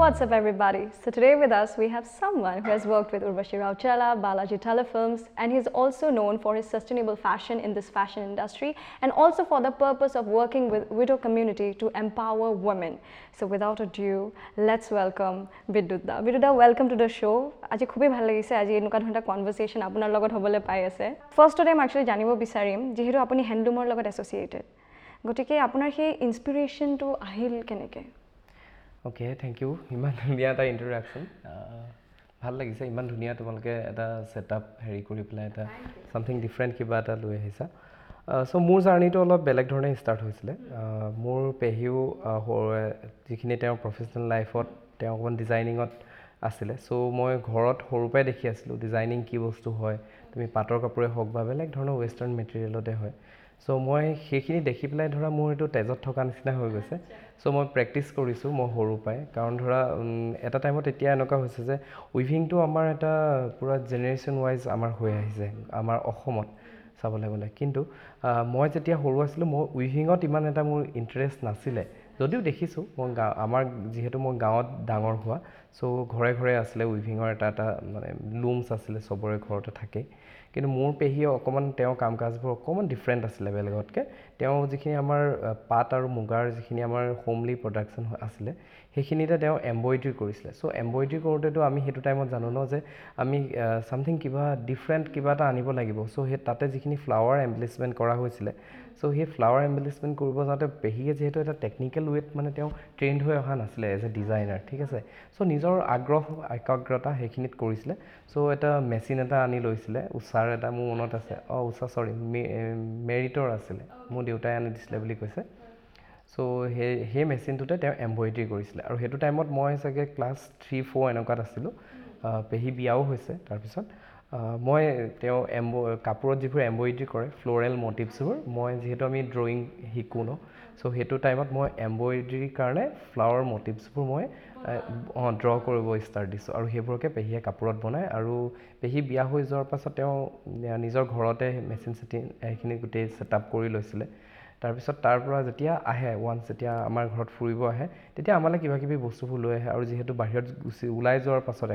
What's up, everybody? So today with us we have someone who has worked with Urvashi Rautela, Balaji Telefilms, and he's also known for his sustainable fashion in this fashion industry and also for the purpose of working with widow community to empower women. So without ado, let's welcome Bidyut da. Bidyut da, welcome to the show. আজি খুবেই ভাল লাগিছে, আজি এনেকুৱা ধৰণৰ conversation আপোনাৰ লগত হ'বলৈ পাই আছে। ফাৰ্ষ্টতে মই একচুৱেলি জানিব বিচাৰিম, যিহেতু আপুনি হেণ্ডলুমৰ লগত এছ'চিয়েটেড, গতিকে আপোনাৰ সেই ইনস্পিৰেশ্যনটো আহিল কেনেকৈ? Okay, thank U. ইমান ধুনীয়া এটা ইণ্ট্ৰডাকশ্যন, ভাল লাগিছে। ইমান ধুনীয়া তোমালোকে এটা ছেটআপ হেৰি কৰি পেলাই এটা ছামথিং ডিফাৰেণ্ট কিবা এটা লৈ আহিছা। চ' মোৰ জাৰ্ণিটো অলপ বেলেগ ধৰণে ষ্টাৰ্ট হৈছিলে। মোৰ পেহীও যিখিনি তেওঁ প্ৰফেচনেল লাইফত তেওঁ অকণমান ডিজাইনিঙত আছিলে। চ' মই ঘৰত সৰুৰ পৰাই দেখি আছিলোঁ ডিজাইনিং কি বস্তু হয়, তুমি পাটৰ কাপোৰে হওক বা বেলেগ ধৰণৰ ৱেষ্টাৰ্ণ মেটেৰিয়েলতে হয়। চ' মই সেইখিনি দেখি পেলাই ধৰা মোৰ এইটো তেজত থকা নিচিনা হৈ গৈছে। চ' মই প্ৰেক্টিচ কৰিছোঁ মই সৰুৰ পৰাই, কাৰণ ধৰা এটা টাইমত এতিয়া এনেকুৱা হৈছে যে উইভিংটো আমাৰ এটা পূৰা জেনেৰেশ্যন ৱাইজ আমাৰ হৈ আহিছে আমাৰ অসমত চাবলৈ গ'লে। কিন্তু মই যেতিয়া সৰু আছিলোঁ, মই উইভিঙত ইমান এটা মোৰ ইণ্টাৰেষ্ট নাছিলে যদিও দেখিছোঁ মই আমাৰ যিহেতু মই গাঁৱত ডাঙৰ হোৱা, চ' ঘৰে ঘৰে আছিলে উইভিঙৰ এটা এটা মানে লুমছ আছিলে, চবৰে ঘৰতে থাকেই। কিন্তু মোৰ পেহীয়ে অকণমান তেওঁৰ কাম কাজবোৰ অকণমান ডিফাৰেণ্ট আছিলে বেলেগতকৈ। তেওঁ যিখিনি আমাৰ পাট আৰু মুগাৰ যিখিনি আমাৰ হোমলি প্ৰডাকশ্যন আছিলে, সেইখিনিতে তেওঁ এম্ব্ৰইডাৰী কৰিছিলে। চ' এম্ব্ৰইডাৰী কৰোঁতেতো আমি সেইটো টাইমত জানো ন যে আমি ছামথিং কিবা ডিফাৰেণ্ট কিবা এটা আনিব লাগিব। চ' সেই তাতে যিখিনি ফ্লাৱাৰ এম্বেলিছমেণ্ট কৰা হৈছিলে, চ' সেই ফ্লাৱাৰ এম্বেলিছমেণ্ট কৰিব যাওঁতে পেহীয়ে যিহেতু এটা টেকনিকেল ৱেত মানে তেওঁ ট্ৰেইনড হৈ অহা নাছিলে এজ এ ডিজাইনাৰ, ঠিক আছে, চ' নিজৰ আগ্ৰহ একাগ্ৰতা সেইখিনিত কৰিছিলে। চ' এটা মেচিন এটা আনি লৈছিলে, উষাৰ এটা, মোৰ মনত আছে, অঁ উষা, চৰি, মেৰিটৰ আছিলে, মোৰ দেউতাই আনি দিছিলে বুলি কৈছে। চ' সেই মেচিনটোতে তেওঁ এম্ব্ৰইডাৰী কৰিছিলে আৰু সেইটো টাইমত মই চাগে ক্লাছ 3-4 এনেকুৱাত আছিলোঁ। পেহী বিয়াও হৈছে তাৰপিছত। মই তেওঁ কাপোৰত যিবোৰ এম্ব্ৰইডাৰী কৰে, ফ্ল'ৰেল মটিভছবোৰ, মই যিহেতু আমি ড্ৰয়িং শিকোঁ ন, চ' সেইটো টাইমত মই এম্ব্ৰইডাৰীৰ কাৰণে ফ্লাৱাৰ মটিভছবোৰ মই ড্ৰ কৰিব ষ্টাৰ্ট দিছোঁ আৰু সেইবোৰকে পেহীয়ে কাপোৰত বনায়। আৰু পেহী বিয়া হৈ যোৱাৰ পাছত তেওঁ নিজৰ ঘৰতে মেচিন চেচিন সেইখিনি গোটেই ছেট আপ কৰি লৈছিলে। তাৰপিছত তাৰ পৰা যেতিয়া আহে, ওৱান্স যেতিয়া আমাৰ ঘৰত ফুৰিব আহে, তেতিয়া আমালৈ কিবা কিবি বস্তুবোৰ লৈ আহে। আৰু যিহেতু বাহিৰত গুচি ওলাই যোৱাৰ পাছত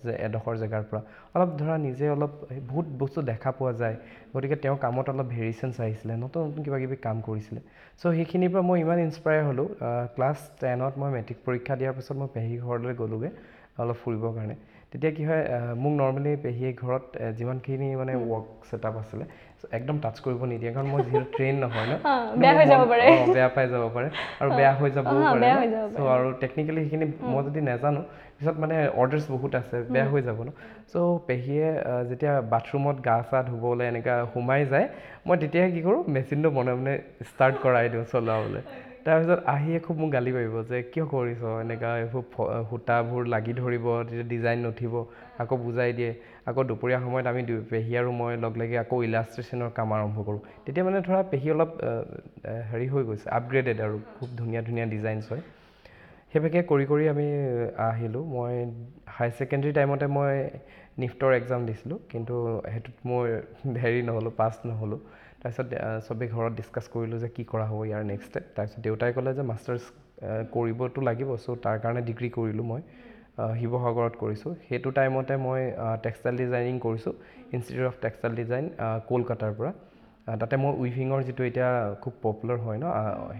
যে এডোখৰ জেগাৰ পৰা অলপ ধৰা নিজে অলপ বহুত বস্তু দেখা পোৱা যায়, গতিকে তেওঁৰ কামত অলপ ভেৰিয়েশ্যনছ আহিছিলে, নতুন নতুন কিবা কিবি কাম কৰিছিলে। চ' সেইখিনিৰ পৰা মই ইমান ইনস্পায়াৰ হ'লোঁ। ক্লাছ 10ত মই মেট্ৰিক পৰীক্ষা দিয়াৰ পাছত মই পেহীৰ ঘৰলৈ গ'লোগৈ অলপ ফুৰিবৰ কাৰণে। তেতিয়া কি হয়, মোক নৰ্মেলি পেহীয়ে ঘৰত যিমানখিনি মানে ৱৰ্ক ছেটআপ আছিলে একদম টাচ কৰিব নিদিয়ে, কাৰণ মই যিহেতু ট্ৰেইন নহয় ন, বেয়া হৈ যাব পাৰে, বেয়া পাই যাব পাৰে আৰু বেয়া হৈ যাবও পাৰে। চ' আৰু টেকনিকেলি সেইখিনি মই যদি নাজানো, পিছত মানে অৰ্ডাৰ্ছ বহুত আছে, বেয়া হৈ যাব ন। চ' পেহীয়ে যেতিয়া বাথৰুমত গা চা ধুবলৈ এনেকুৱা সোমাই যায়, মই তেতিয়াই কি কৰোঁ, মেচিনটো মনে মনে ষ্টাৰ্ট কৰাই দিওঁ চলাবলৈ। তাৰপিছত আহিয়ে খুব মোক গালি পাৰিব যে কিয় কৰিছ এনেকুৱা, এইবোৰ সূতাবোৰ লাগি ধৰিব, তেতিয়া ডিজাইন নুঠিব। আকৌ বুজাই দিয়ে। আকৌ দুপৰীয়া সময়ত আমি দুই পেহী আৰু মই লগ লাগি আকৌ ইলাষ্ট্ৰেশ্যনৰ কাম আৰম্ভ কৰোঁ। তেতিয়া মানে ধৰা পেহী অলপ হেৰি হৈ গৈছে, আপগ্ৰেডেড আৰু খুব ধুনীয়া ধুনীয়া ডিজাইনছ হয়। সেইভাগে কৰি কৰি আমি আহিলোঁ। মই হাই ছেকেণ্ডেৰী টাইমতে মই নিফ্টৰ এক্সাম দিছিলোঁ, কিন্তু সেইটোত মই হেৰি নহ'লোঁ, পাছ নহ'লোঁ। তাৰপিছত চবেই ঘৰত ডিছকাছ কৰিলোঁ যে কি কৰা হ'ব ইয়াৰ নেক্সট ষ্টেপ। তাৰপিছত দেউতাই ক'লে যে মাষ্টাৰ্ছ কৰিবতো লাগিব, চ' তাৰ কাৰণে ডিগ্ৰী কৰিলোঁ মই, শিৱসাগৰত কৰিছোঁ। সেইটো টাইমতে মই টেক্সটাইল ডিজাইনিং কৰিছোঁ, ইনষ্টিটিউট অফ টেক্সটাইল ডিজাইন, কলকাতাৰ পৰা। তাতে মই উইভিঙৰ যিটো এতিয়া খুব পপুলাৰ হয় ন,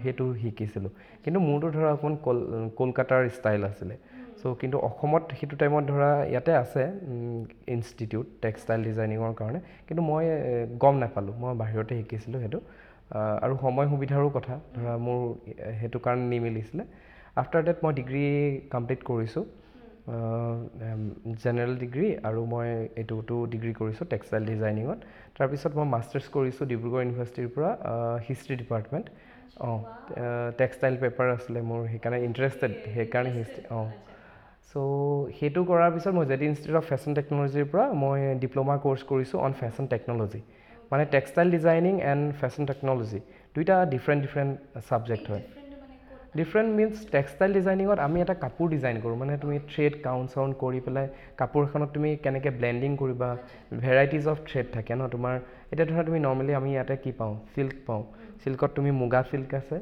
সেইটো শিকিছিলোঁ। কিন্তু মোৰতো ধৰা অকণমান কলকাতাৰ ষ্টাইল আছিলে। চ' কিন্তু অসমত সেইটো টাইমত ধৰা ইয়াতে আছে ইনষ্টিটিউট টেক্সটাইল ডিজাইনিঙৰ কাৰণে, কিন্তু মই গম নাপালোঁ, মই বাহিৰতে শিকিছিলোঁ সেইটো। আৰু সময় সুবিধাৰো কথা, ধৰা মোৰ সেইটো কাৰণে নিমিলিছিলে। আফটাৰ ডেট মই ডিগ্ৰী কমপ্লিট কৰিছোঁ, জেনেৰেল ডিগ্ৰী, আৰু মই এইটোতো ডিগ্ৰী কৰিছোঁ টেক্সটাইল ডিজাইনিঙত। তাৰপিছত মই মাষ্টাৰ্ছ কৰিছোঁ ডিব্ৰুগড় ইউনিভাৰ্চিটিৰ পৰা, হিষ্ট্ৰী ডিপাৰ্টমেণ্ট। অঁ, টেক্সটাইল পেপাৰ আছিলে মোৰ, সেইকাৰণে ইণ্টাৰেষ্টেড, সেইকাৰণে হিষ্ট্ৰী। অঁ, চ' সেইটো কৰাৰ পিছত মই J D institute of fashion টেকন'লজিৰ পৰা মই ডিপ্ল'মা ক'ৰ্চ কৰিছোঁ অন ফেশ্বন টেকন'লজি, মানে textile designing and fashion technology দুইটা ডিফাৰেণ্ট ডিফাৰেণ্ট ছাবজেক্ট হয়। ডিফাৰেণ্ট মিনছ টেক্সটাইল ডিজাইনিঙত আমি এটা কাপোৰ ডিজাইন কৰোঁ, মানে তুমি থ্ৰেড কাউণ্ট চাউণ্ট কৰি পেলাই কাপোৰ এখনত তুমি কেনেকৈ ব্লেণ্ডিং কৰিবা, ভেৰাইটিজ অফ থ্ৰেড থাকে ন তোমাৰ। এতিয়া ধৰা তুমি নৰ্মেলি আমি ইয়াতে কি পাওঁ, চিল্ক পাওঁ। চিল্কত তুমি মুগা চিল্ক আছে,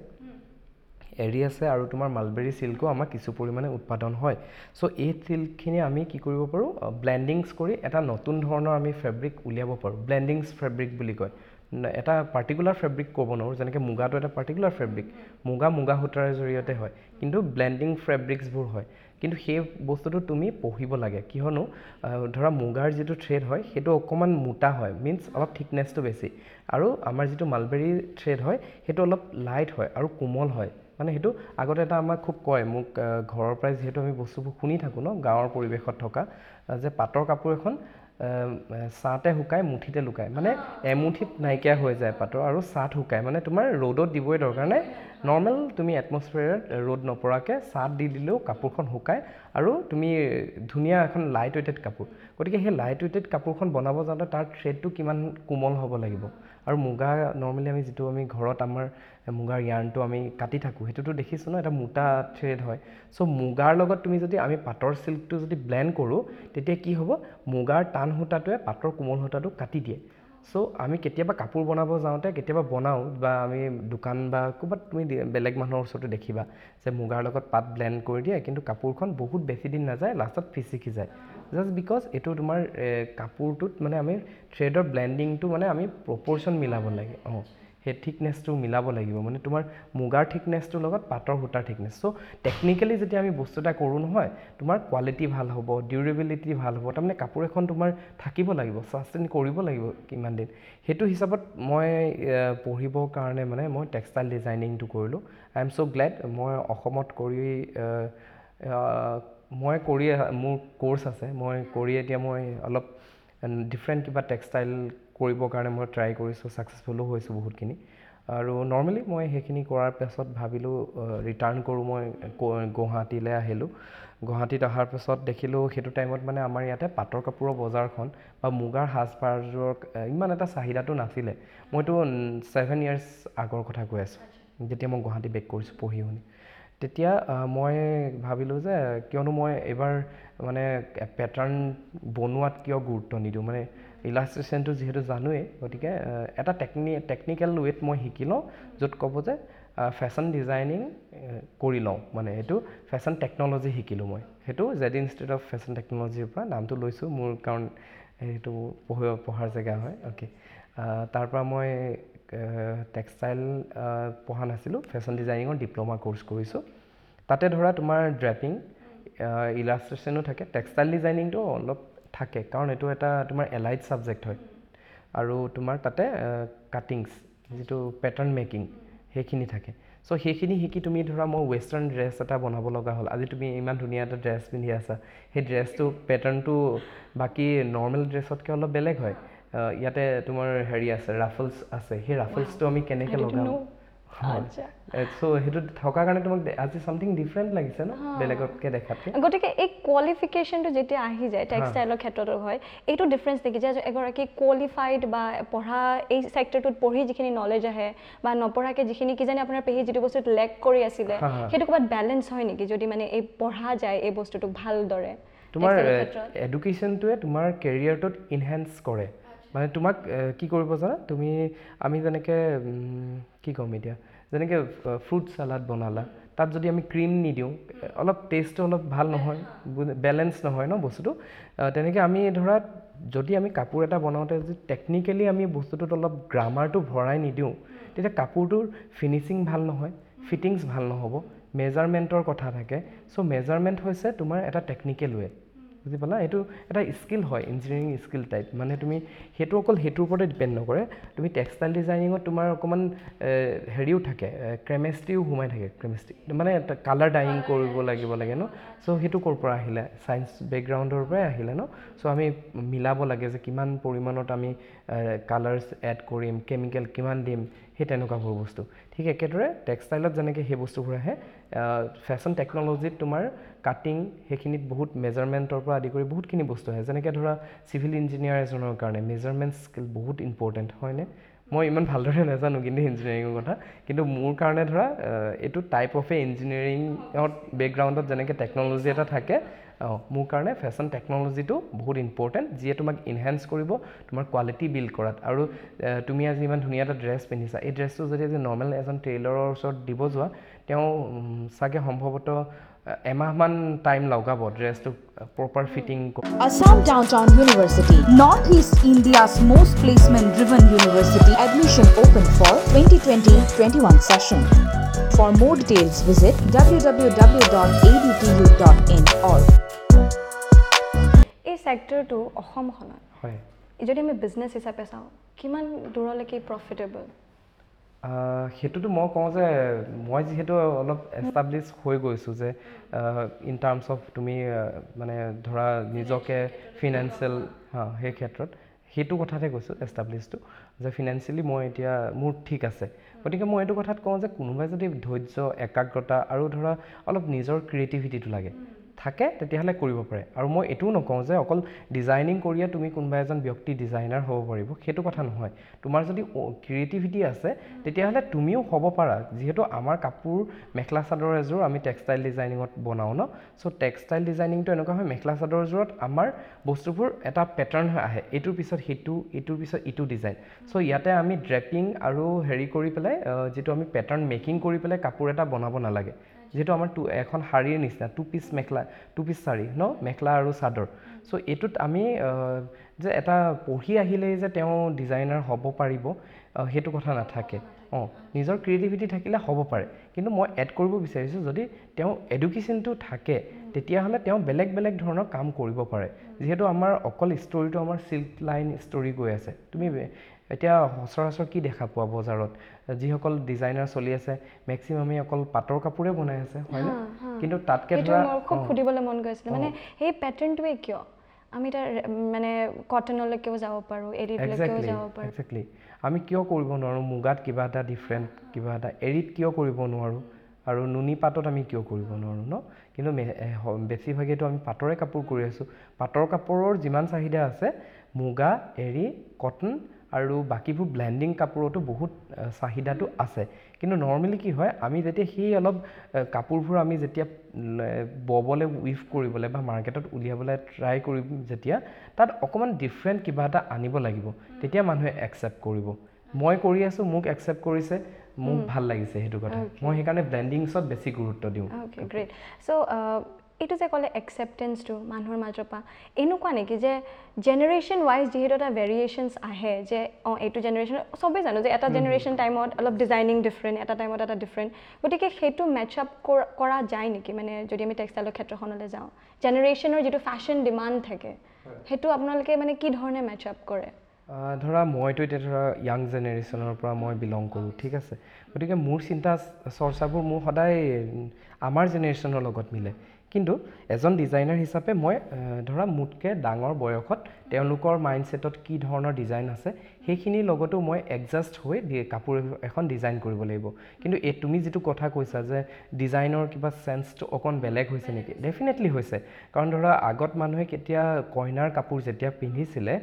এৰী আছে আৰু তোমাৰ মালবেৰী চিল্কো আমাৰ কিছু পৰিমাণে উৎপাদন হয়। চ' এই চিল্কখিনি আমি কি কৰিব পাৰোঁ, ব্লেণ্ডিংছ কৰি এটা নতুন ধৰণৰ আমি ফেব্ৰিক উলিয়াব পাৰোঁ। ব্লেণ্ডিংছ ফেব্ৰিক বুলি কয়। এটা পাৰ্টিকুলাৰ ফেব্ৰিক ক'ব নোৱাৰোঁ, যেনেকৈ মুগাটো এটা পাৰ্টিকুলাৰ ফেব্ৰিক, মুগা মুগা সূতাৰ জৰিয়তে হয়, কিন্তু ব্লেণ্ডিং ফেব্ৰিক্সবোৰ হয়। কিন্তু সেই বস্তুটো তুমি পঢ়িব লাগে, কিয়নো ধৰা মুগাৰ যিটো থ্ৰেড হয় সেইটো অকণমান মোটা হয়, মিনছ অলপ থিকনেছটো বেছি, আৰু আমাৰ যিটো মালবেৰী থ্ৰেড হয় সেইটো অলপ লাইট হয় আৰু কোমল হয়। মানে সেইটো আগতে এটা আমাক খুব কয়, মোক ঘৰৰ পৰাই যিহেতু আমি বস্তুবোৰ শুনি থাকোঁ ন, গাঁৱৰ পৰিৱেশত থকা, যে পাটৰ কাপোৰ এখন ছাঁতে শুকায় মুঠিতে লুকায়, মানে এমুঠিত নাইকিয়া হৈ যায় পাটৰ, আৰু ছাঁত শুকায়, মানে তোমাৰ ৰ'দত দিবই দৰকাৰ নাই, নৰ্মেল তুমি এটমছফিয়াৰত ৰ'দ নপৰাকৈ ছাঁত দি দিলেও কাপোৰখন শুকায় আৰু তুমি ধুনীয়া এখন লাইট ৱেইটেড কাপোৰ। গতিকে সেই লাইট ৱেইটেড কাপোৰখন বনাব যাওঁতে তাৰ থ্ৰেডটো কিমান কোমল হ'ব লাগিব। আৰু মুগা নৰ্মেলি আমি যিটো আমি ঘৰত আমাৰ মুগাৰ য়াৰ্ণটো আমি কাটি থাকোঁ, সেইটোতো দেখিছোঁ ন, এটা মোটা থ্ৰেড হয়। চ' মুগাৰ লগত তুমি যদি আমি পাটৰ চিল্কটো যদি ব্লেণ্ড কৰোঁ, তেতিয়া কি হ'ব, মুগাৰ টান সূতাটোৱে পাটৰ কোমল সূতাটো কাটি দিয়ে। চ' আমি কেতিয়াবা কাপোৰ বনাব যাওঁতে কেতিয়াবা বনাওঁ, বা আমি দোকান বা ক'ৰবাত তুমি বেলেগ মানুহৰ ওচৰতো দেখিবা যে মুগাৰ লগত পাট ব্লেণ্ড কৰি দিয়ে, কিন্তু কাপোৰখন বহুত বেছি দিন নাযায়, লাষ্টত ফিচিকি যায়। জাষ্ট because এইটো তোমাৰ কাপোৰটোত মানে আমি থ্ৰেডৰ ব্লেণ্ডিংটো মানে আমি প্ৰপ'ৰ্শ্যন মিলাব লাগে, অঁ, সেই থিকনেছটো মিলাব লাগিব, মানে তোমাৰ মুগাৰ থিকনেছটোৰ লগত পাটৰ সূতাৰ থিকনেছ। চ' টেকনিকেলি যেতিয়া আমি বস্তু এটা কৰোঁ নহয়, তোমাৰ কোৱালিটি ভাল হ'ব, ডিউৰেবিলিটি ভাল হ'ব, তাৰমানে কাপোৰ এখন তোমাৰ থাকিব লাগিব, ছাষ্টেইন কৰিব লাগিব কিমান দিন। সেইটো হিচাপত মই পঢ়িবৰ কাৰণে মানে মই টেক্সটাইল ডিজাইনিংটো কৰিলোঁ। I am so glad মই অসমত কৰি মই কৰি মোৰ ক'ৰ্চ আছে, মই কৰি এতিয়া মই অলপ ডিফাৰেণ্ট কিবা টেক্সটাইল কৰিবৰ কাৰণে মই ট্ৰাই কৰিছোঁ, ছাকচেছফুলো হৈছোঁ বহুতখিনি। আৰু নৰ্মেলি মই সেইখিনি কৰাৰ পাছত ভাবিলোঁ ৰিটাৰ্ণ কৰোঁ, মই গুৱাহাটীলৈ আহিলোঁ। গুৱাহাটীত অহাৰ পাছত দেখিলোঁ সেইটো টাইমত মানে আমাৰ ইয়াতে পাটৰ কাপোৰৰ বজাৰখন বা মুগাৰ সাজপাৰযোৰৰ ইমান এটা চাহিদাটো নাছিলে। মইতো 7 ইয়াৰ্ছ আগৰ কথা কৈ আছোঁ, যেতিয়া মই গুৱাহাটী বেক কৰিছোঁ পঢ়ি শুনি। তেতিয়া মই ভাবিলোঁ যে কিয়নো মই এইবাৰ মানে পেটাৰ্ণ বনোৱাত কিয় গুৰুত্ব নিদিওঁ, মানে ইলাষ্ট্ৰেশ্যনটো যিহেতু জানোৱেই, গতিকে এটা টেকনিকেল ৱেত মই শিকি লওঁ, য'ত ক'ব যে ফেশ্বন ডিজাইনিং কৰি লওঁ, মানে এইটো ফেশ্বন টেকন'লজি শিকিলোঁ মই। সেইটো জেড ইনষ্টিটিউট অফ ফেশ্বন টেকন'লজিৰ পৰা নামটো লৈছোঁ মোৰ, কাৰণ সেইটো পঢ়াৰ জেগা হয়। অ'কে, তাৰপৰা মই টেক্সটাইল পঢ়া নাছিলোঁ, ফেশ্বন ডিজাইনিঙৰ ডিপ্ল'মা ক'ৰ্চ কৰিছোঁ। তাতে ধৰা তোমাৰ ড্ৰেপিং, ইলাষ্ট্ৰেশ্যনো থাকে, টেক্সটাইল ডিজাইনিংটো অলপ থাকে, কাৰণ এইটো এটা তোমাৰ এলাইড ছাবজেক্ট হয়। আৰু তোমাৰ তাতে কাটিংছ যিটো পেটাৰ্ণ মেকিং সেইখিনি থাকে। চ' সেইখিনি শিকি তুমি ধৰা মই ৱেষ্টাৰ্ণ ড্ৰেছ এটা বনাব লগা হ'ল, আজি তুমি ইমান ধুনীয়া এটা ড্ৰেছ পিন্ধি আছা, সেই ড্ৰেছটো পেটাৰ্ণটো বাকী নৰ্মেল ড্ৰেছতকৈ অলপ বেলেগ হয়। ইয়াতে তোমাৰ হেৰি আছে, ৰাফলছ আছে, সেই ৰাফলছটো আমি কেনেকৈ লগাম, চ' সেইটো থকাৰ কাৰণে তোমাক আজি চামথিং ডিফাৰেণ্ট লাগিছে ন বেলেগতকৈ দেখাতকৈ। গতিকে এই কোৱালিফিকেশ্যনটো যেতিয়া আহি যায় টেক্সটাইলৰ ক্ষেত্ৰতো হয়, এইটো ডিফাৰেঞ্চ নেকি যে এগৰাকী কোৱালিফাইড বা পঢ়া এই ছেক্টৰটোত পঢ়ি যিখিনি নলেজ আহে বা নপঢ়াকৈ যিখিনি কিজানি আপোনাৰ পেহী যিটো বস্তুত লেক কৰি আছিলে, সেইটো ক'ৰবাত বেলেঞ্চ হয় নেকি যদি মানে এই পঢ়া যায় এই বস্তুটোক ভালদৰে? তোমাৰ এডুকেশ্যনটোৱে তোমাৰ কেৰিয়াৰটোত ইনহেঞ্চ কৰে, মানে তোমাক কি কৰিব জানা তুমি, আমি যেনেকৈ কি ক'ম এতিয়া, যেনেকৈ ফ্ৰুট চালাড বনালা, তাত যদি আমি ক্ৰীম নিদিওঁ অলপ টেষ্টটো অলপ ভাল নহয়, বেলেঞ্চ নহয় ন বস্তুটো। তেনেকৈ আমি ধৰা যদি আমি কাপোৰ এটা বনাওঁতে যদি টেকনিকেলি আমি বস্তুটোত অলপ গ্ৰামাৰটো ভৰাই নিদিওঁ, তেতিয়া কাপোৰটোৰ ফিনিচিং ভাল নহয়, ফিটিংছ ভাল নহ'ব, মেজাৰমেণ্টৰ কথা থাকে। চ' মেজাৰমেণ্ট হৈছে তোমাৰ এটা টেকনিকেল ৱে, বুজি পালা? এইটো এটা স্কিল হয়, ইঞ্জিনিয়াৰিং স্কিল টাইপ। মানে তুমি সেইটো অকল সেইটোৰ ওপৰতে ডিপেণ্ড নকৰে, তুমি টেক্সটাইল ডিজাইনিঙত তোমাৰ অকণমান হেৰিও থাকে, কেমেষ্ট্ৰিও সোমাই থাকে। কেমেষ্ট্ৰি মানে কালাৰ ডাইং কৰিব লাগিব লাগে ন। চ' সেইটো ক'ৰ পৰা আহিলে? ছায়েন্স বেকগ্ৰাউণ্ডৰ পৰাই আহিলে ন। চ' আমি মিলাব লাগে যে কিমান পৰিমাণত আমি কালাৰ্ছ এড কৰিম, কেমিকেল কিমান দিম, সেই তেনেকুৱাবোৰ বস্তু। ঠিক একেদৰে টেক্সটাইলত যেনেকৈ সেই বস্তুবোৰ আহে, ফেশ্বন টেকন'লজিত তোমাৰ কাটিং সেইখিনিত বহুত মেজাৰমেণ্টৰ পৰা আদি কৰি বহুতখিনি বস্তু আহে। যেনেকৈ ধৰা চিভিল ইঞ্জিনিয়াৰ এজনৰ কাৰণে মেজাৰমেণ্ট স্কিল বহুত ইম্পৰ্টেণ্ট, হয়নে? মই ইমান ভালদৰে নাজানো কিন্তু ইঞ্জিনিয়াৰিঙৰ কথা, কিন্তু মোৰ কাৰণে ধৰা এইটো টাইপ অফ এ ইঞ্জিনিয়াৰিঙত বেকগ্ৰাউণ্ডত যেনেকৈ টেকন'লজি এটা থাকে, অঁ, মোৰ কাৰণে ফেশ্বন টেকন'লজিটো বহুত ইম্পৰ্টেণ্ট, যিয়ে তোমাক ইনহেঞ্চ কৰিব তোমাৰ কোৱালিটি বিল্ড কৰাত। আৰু তুমি আজি ইমান ধুনীয়া এটা ড্ৰেছ পিন্ধিছা, এই ড্ৰেছটো যদি আজি নৰ্মেল এজন টেইলৰৰ ওচৰত দিব যোৱা, তেওঁ চাগে সম্ভৱতঃ এমাহমান টাইম লগাব ড্ৰেছটো proper fitting. Assam Downtown University, Northeast India's most placement driven university. Admission open for 2020-21 session. For more details, visit www.adtu.in or এই ছেক্টৰটো অসমখনত যদি আমি বিজনেছ হিচাপে চাওঁ, কিমান দূৰলৈকে প্ৰফিটেবল? সেইটোতো মই কওঁ যে মই যিহেতু অলপ এষ্টাব্লিছ হৈ গৈছোঁ যে ইন টাৰ্মছ অফ তুমি মানে ধৰা নিজকে ফিনেন্সিয়েল, হা, সেই ক্ষেত্ৰত সেইটো কথাতে কৈছোঁ এষ্টাব্লিছটো যে ফিনেন্সিয়েলি মই এতিয়া মোৰ ঠিক আছে। গতিকে মই এইটো কথাত কওঁ যে কোনোবাই যদি ধৈৰ্য, একাগ্ৰতা আৰু ধৰা অলপ নিজৰ ক্ৰিয়েটিভিটিটো লাগে থাকে, তেতিয়াহ'লে কৰিব পাৰে। আৰু মই এইটোও নকওঁ যে অকল ডিজাইনিং কৰিয়ে তুমি কোনোবা এজন ব্যক্তি ডিজাইনাৰ হ'ব পাৰিব, সেইটো কথা নহয়। তোমাৰ যদি ক্ৰিয়েটিভিটি আছে, তেতিয়াহ'লে তুমিও হ'ব পাৰা। যিহেতু আমাৰ কাপোৰ মেখেলা চাদৰ এযোৰ আমি টেক্সটাইল ডিজাইনিঙত বনাওঁ ন, চ' টেক্সটাইল ডিজাইনিংটো এনেকুৱা হয়, মেখেলা চাদৰযোৰত আমাৰ বস্তুবোৰ এটা পেটাৰ্ণ হৈ আহে, এইটোৰ পিছত সেইটো, এইটোৰ পিছত ইটো ডিজাইন। চ' ইয়াতে আমি ড্ৰেপিং আৰু হেৰি কৰি পেলাই যিটো আমি পেটাৰ্ণ মেকিং কৰি পেলাই কাপোৰ এটা বনাব নালাগে। যিহেতু আমাৰ টু এখন শাৰীৰ নিচিনা টু পিচ মেখেলা, টু পিচ শাৰী ন, মেখেলা আৰু চাদৰ। চ' এইটোত আমি যে এটা পঢ়ি আহিলেই যে তেওঁ ডিজাইনাৰ হ'ব পাৰিব, সেইটো কথা নাথাকে। অঁ, নিজৰ ক্ৰিয়েটিভিটি থাকিলে হ'ব পাৰে। কিন্তু মই এড কৰিব বিচাৰিছোঁ, যদি তেওঁ এডুকেশ্যনটো থাকে, তেতিয়াহ'লে তেওঁ বেলেগ বেলেগ ধৰণৰ কাম কৰিব পাৰে। যিহেতু আমাৰ অকল ষ্টৰিটো আমাৰ চিল্ক লাইন ষ্টৰি গৈ আছে, তুমি এতিয়া সচৰাচৰ কি দেখা পোৱা বজাৰত, যিসকল ডিজাইনাৰ চলি আছে, মেক্সিমামেই অকল পাটৰ কাপোৰে বনাই আছে, হয়নে? কিন্তু তাতকৈ সেইটো ধৰা মোৰ খুব সুধিবলৈ মন গৈছিলে, মানে সেই পেটাৰ্ণটোৱে কিয়? আমি তাৰ মানে কটনলৈকেও যাব পাৰোঁ, এৰীলৈকেও যাব পাৰোঁ। একজেক্টলি, আমি কিয় কৰিব নোৱাৰোঁ মুগাত কিবা এটা ডিফাৰেণ্ট কিবা এটা, এৰীত কিয় কৰিব নোৱাৰোঁ, আৰু নুনি পাটত আমি কিয় কৰিব নোৱাৰোঁ ন? কিন্তু বেছিভাগেইতো আমি পাটৰে কাপোৰ কৰি আছোঁ। পাটৰ কাপোৰৰ যিমান চাহিদা আছে, মুগা, এৰী, কটন আৰু বাকীবোৰ ব্লেণ্ডিং কাপোৰতো বহুত চাহিদাটো আছে। কিন্তু নৰ্মেলি কি হয়, আমি যেতিয়া সেই অলপ কাপোৰবোৰ আমি যেতিয়া ববলৈ, উইভ কৰিবলৈ বা মাৰ্কেটত উলিয়াবলৈ ট্ৰাই কৰিম, যেতিয়া তাত অকণমান ডিফাৰেণ্ট কিবা এটা আনিব লাগিব, তেতিয়া মানুহে একচেপ্ট কৰিব। মই কৰি আছোঁ, মোক একচেপ্ট কৰিছে, মোক ভাল লাগিছে সেইটো কথা। মই সেইকাৰণে ব্লেণ্ডিংছত বেছি গুৰুত্ব দিওঁ। Okay, great. চ' এইটো যে ক'লে একচেপ্টেঞ্চটো মানুহৰ মাজৰ পৰা, এনেকুৱা নেকি যে জেনেৰেশ্যন ৱাইজ যিহেতু এটা ভেৰিয়েশ্যনছ আহে যে এইটো জেনেৰেশ্যন, চবেই জানো যে এটা জেনেৰেশ্যন টাইমত অলপ ডিজাইনিং ডিফাৰেণ্ট, এটা টাইমত এটা ডিফাৰেণ্ট, গতিকে সেইটো মেচ আপ কৰা যায় নেকি? মানে যদি আমি টেক্সটাইলৰ ক্ষেত্ৰখনলৈ যাওঁ, জেনেৰেশ্যনৰ যিটো ফেশ্বন ডিমাণ্ড থাকে, সেইটো আপোনালোকে মানে কি ধৰণে মেচ আপ কৰে? ধৰা মইতো এতিয়া ধৰা য়াং জেনেৰেশ্যনৰ পৰা মই বিলং কৰোঁ, ঠিক আছে, গতিকে মোৰ চিন্তা চৰ্চাবোৰ মোৰ সদায় আমাৰ জেনেৰেশ্যনৰ লগত মিলে। কিন্তু এজন ডিজাইনাৰ হিচাপে মই ধৰা মোতকৈ ডাঙৰ বয়সত তেওঁলোকৰ মাইণ্ডছেটত কি ধৰণৰ ডিজাইন আছে, সেইখিনিৰ লগতো মই এডজাষ্ট হৈ কাপোৰ এখন ডিজাইন কৰিব লাগিব। কিন্তু এই তুমি যিটো কথা কৈছা যে ডিজাইনৰ কিবা চেন্সটো অকণ বেলেগ হৈছে নেকি, ডেফিনেটলি হৈছে। কাৰণ ধৰা আগত মানুহে কেতিয়া কইনাৰ কাপোৰ যেতিয়া পিন্ধিছিলে,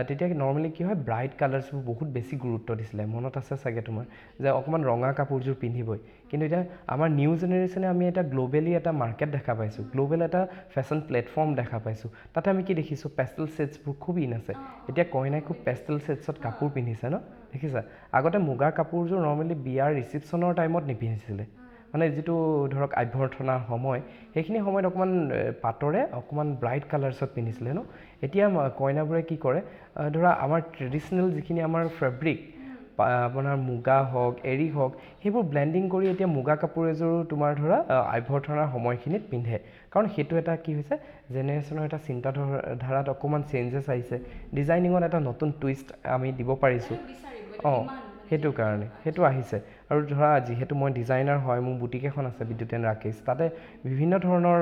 তেতিয়া নৰ্মেলি কি হয়, ব্ৰাইট কালাৰ্ছবোৰ বহুত বেছি গুৰুত্ব দিছিলে। মনত আছে চাগে তোমাৰ যে অকণমান ৰঙা কাপোৰযোৰ পিন্ধিবই। কিন্তু এতিয়া আমাৰ নিউ জেনেৰেশ্যনে আমি এটা গ্ল'বেলি এটা মাৰ্কেট দেখা পাইছোঁ, গ্ল'বেল এটা ফেশ্বন প্লেটফৰ্ম দেখা পাইছোঁ। তাতে আমি কি দেখিছোঁ, পেষ্টেল ছেটছবোৰ খুব ইন আছে। এতিয়া কইনাই খুব পেষ্টেল ছেটছত কাপোৰ পিন্ধিছে ন, দেখিছা? আগতে মুগাৰ কাপোৰযোৰ নৰ্মেলি বিয়াৰ ৰিচিপশ্যনৰ টাইমত নিপিন্ধিছিলে, মানে যিটো ধৰক অভ্যৰ্থনাৰ সময়, সেইখিনি সময়ত অকণমান পাটৰে অকণমান ব্ৰাইট কালাৰ্ছত পিন্ধিছিলে ন। এতিয়া কইনাবোৰে কি কৰে, ধৰা আমাৰ ট্ৰেডিশ্যনেল যিখিনি আমাৰ ফেব্ৰিক, আপোনাৰ মুগা হওক, এৰী হওক, সেইবোৰ ব্লেণ্ডিং কৰি এতিয়া মুগা কাপোৰ এযোৰো তোমাৰ ধৰা অভ্যৰ্থনাৰ সময়খিনিত পিন্ধে। কাৰণ সেইটো এটা কি হৈছে, জেনেৰেশ্যনৰ এটা চিন্তাধাৰাত অকণমান চেঞ্জেছ আহিছে, ডিজাইনিঙত এটা নতুন টুইষ্ট আমি দিব পাৰিছোঁ। সেইটো কাৰণে সেইটো আহিছে। আৰু ধৰা যিহেতু মই ডিজাইনাৰ হয়, মোৰ বুটিক এখন আছে বিদ্যুৎ এণ্ড ৰাকেশ, তাতে বিভিন্ন ধৰণৰ